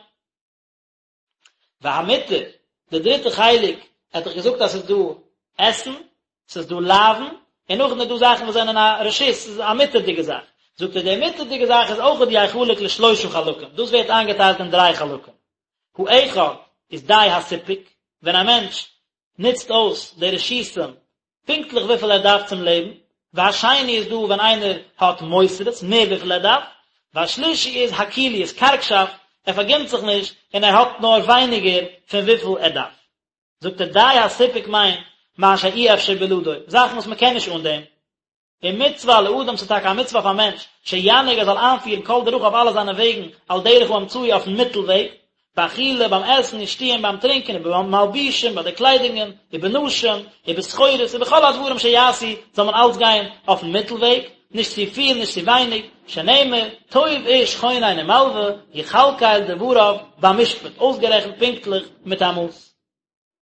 והמותר, די דריטע חלק, ער האט דאך געזאגט אז ס'איז דא עשין, ס'איז דא לאווין, און נאכדעם איז דא זאכן וואס זענען א רשות, ס'איז א מותר'דיגע זאך. זאגט ער, די מותר'דיגע זאך איז אויכעט יחלק לשלושה חלקים, דאס ווערט איינגעטיילט אין דריי חלקים. האחד איז די הסיפוק, ווען א מענטש נוצט אויס די רשותים פונקטליך וויפיל ער דארף צום לעבן, והשני איז דא ווען איינער האט מותרות, מער וויפיל ער דארף, והשלישי איז הכיליות, קארגשאפט, ער פארגינט זיך נישט און ער האט נאר ווייניגער פון וויפיל ער דארף. זאגט ער די הסיפוק מיינט מה שאי אפשר בלעדו, זאכן וואס מען קען נישט אן דעם. ומצוה על האדם ס'איז טאקע א מצוה אויף א מענטש, שינהיג ער זאל איינפירן כל דרכיו אלע זיינע וועגן על דרך האמצעי אויפן מיטל וועג, באכילה ביים עסן ושתיה ביים טרינקען ובמלבושים ביי די קליידונגען ובנשים ובסחורות ובכל הדברים שיעשו זאל מען אלץ גיין אויפן מיטל וועג, נישט צו פיל נישט צו ווייניג, שנאמר, טוב איש חונן ומלוה, יכלכל דבריו במשפט, אויסגערעכנט פונקטליך מיט א מאס.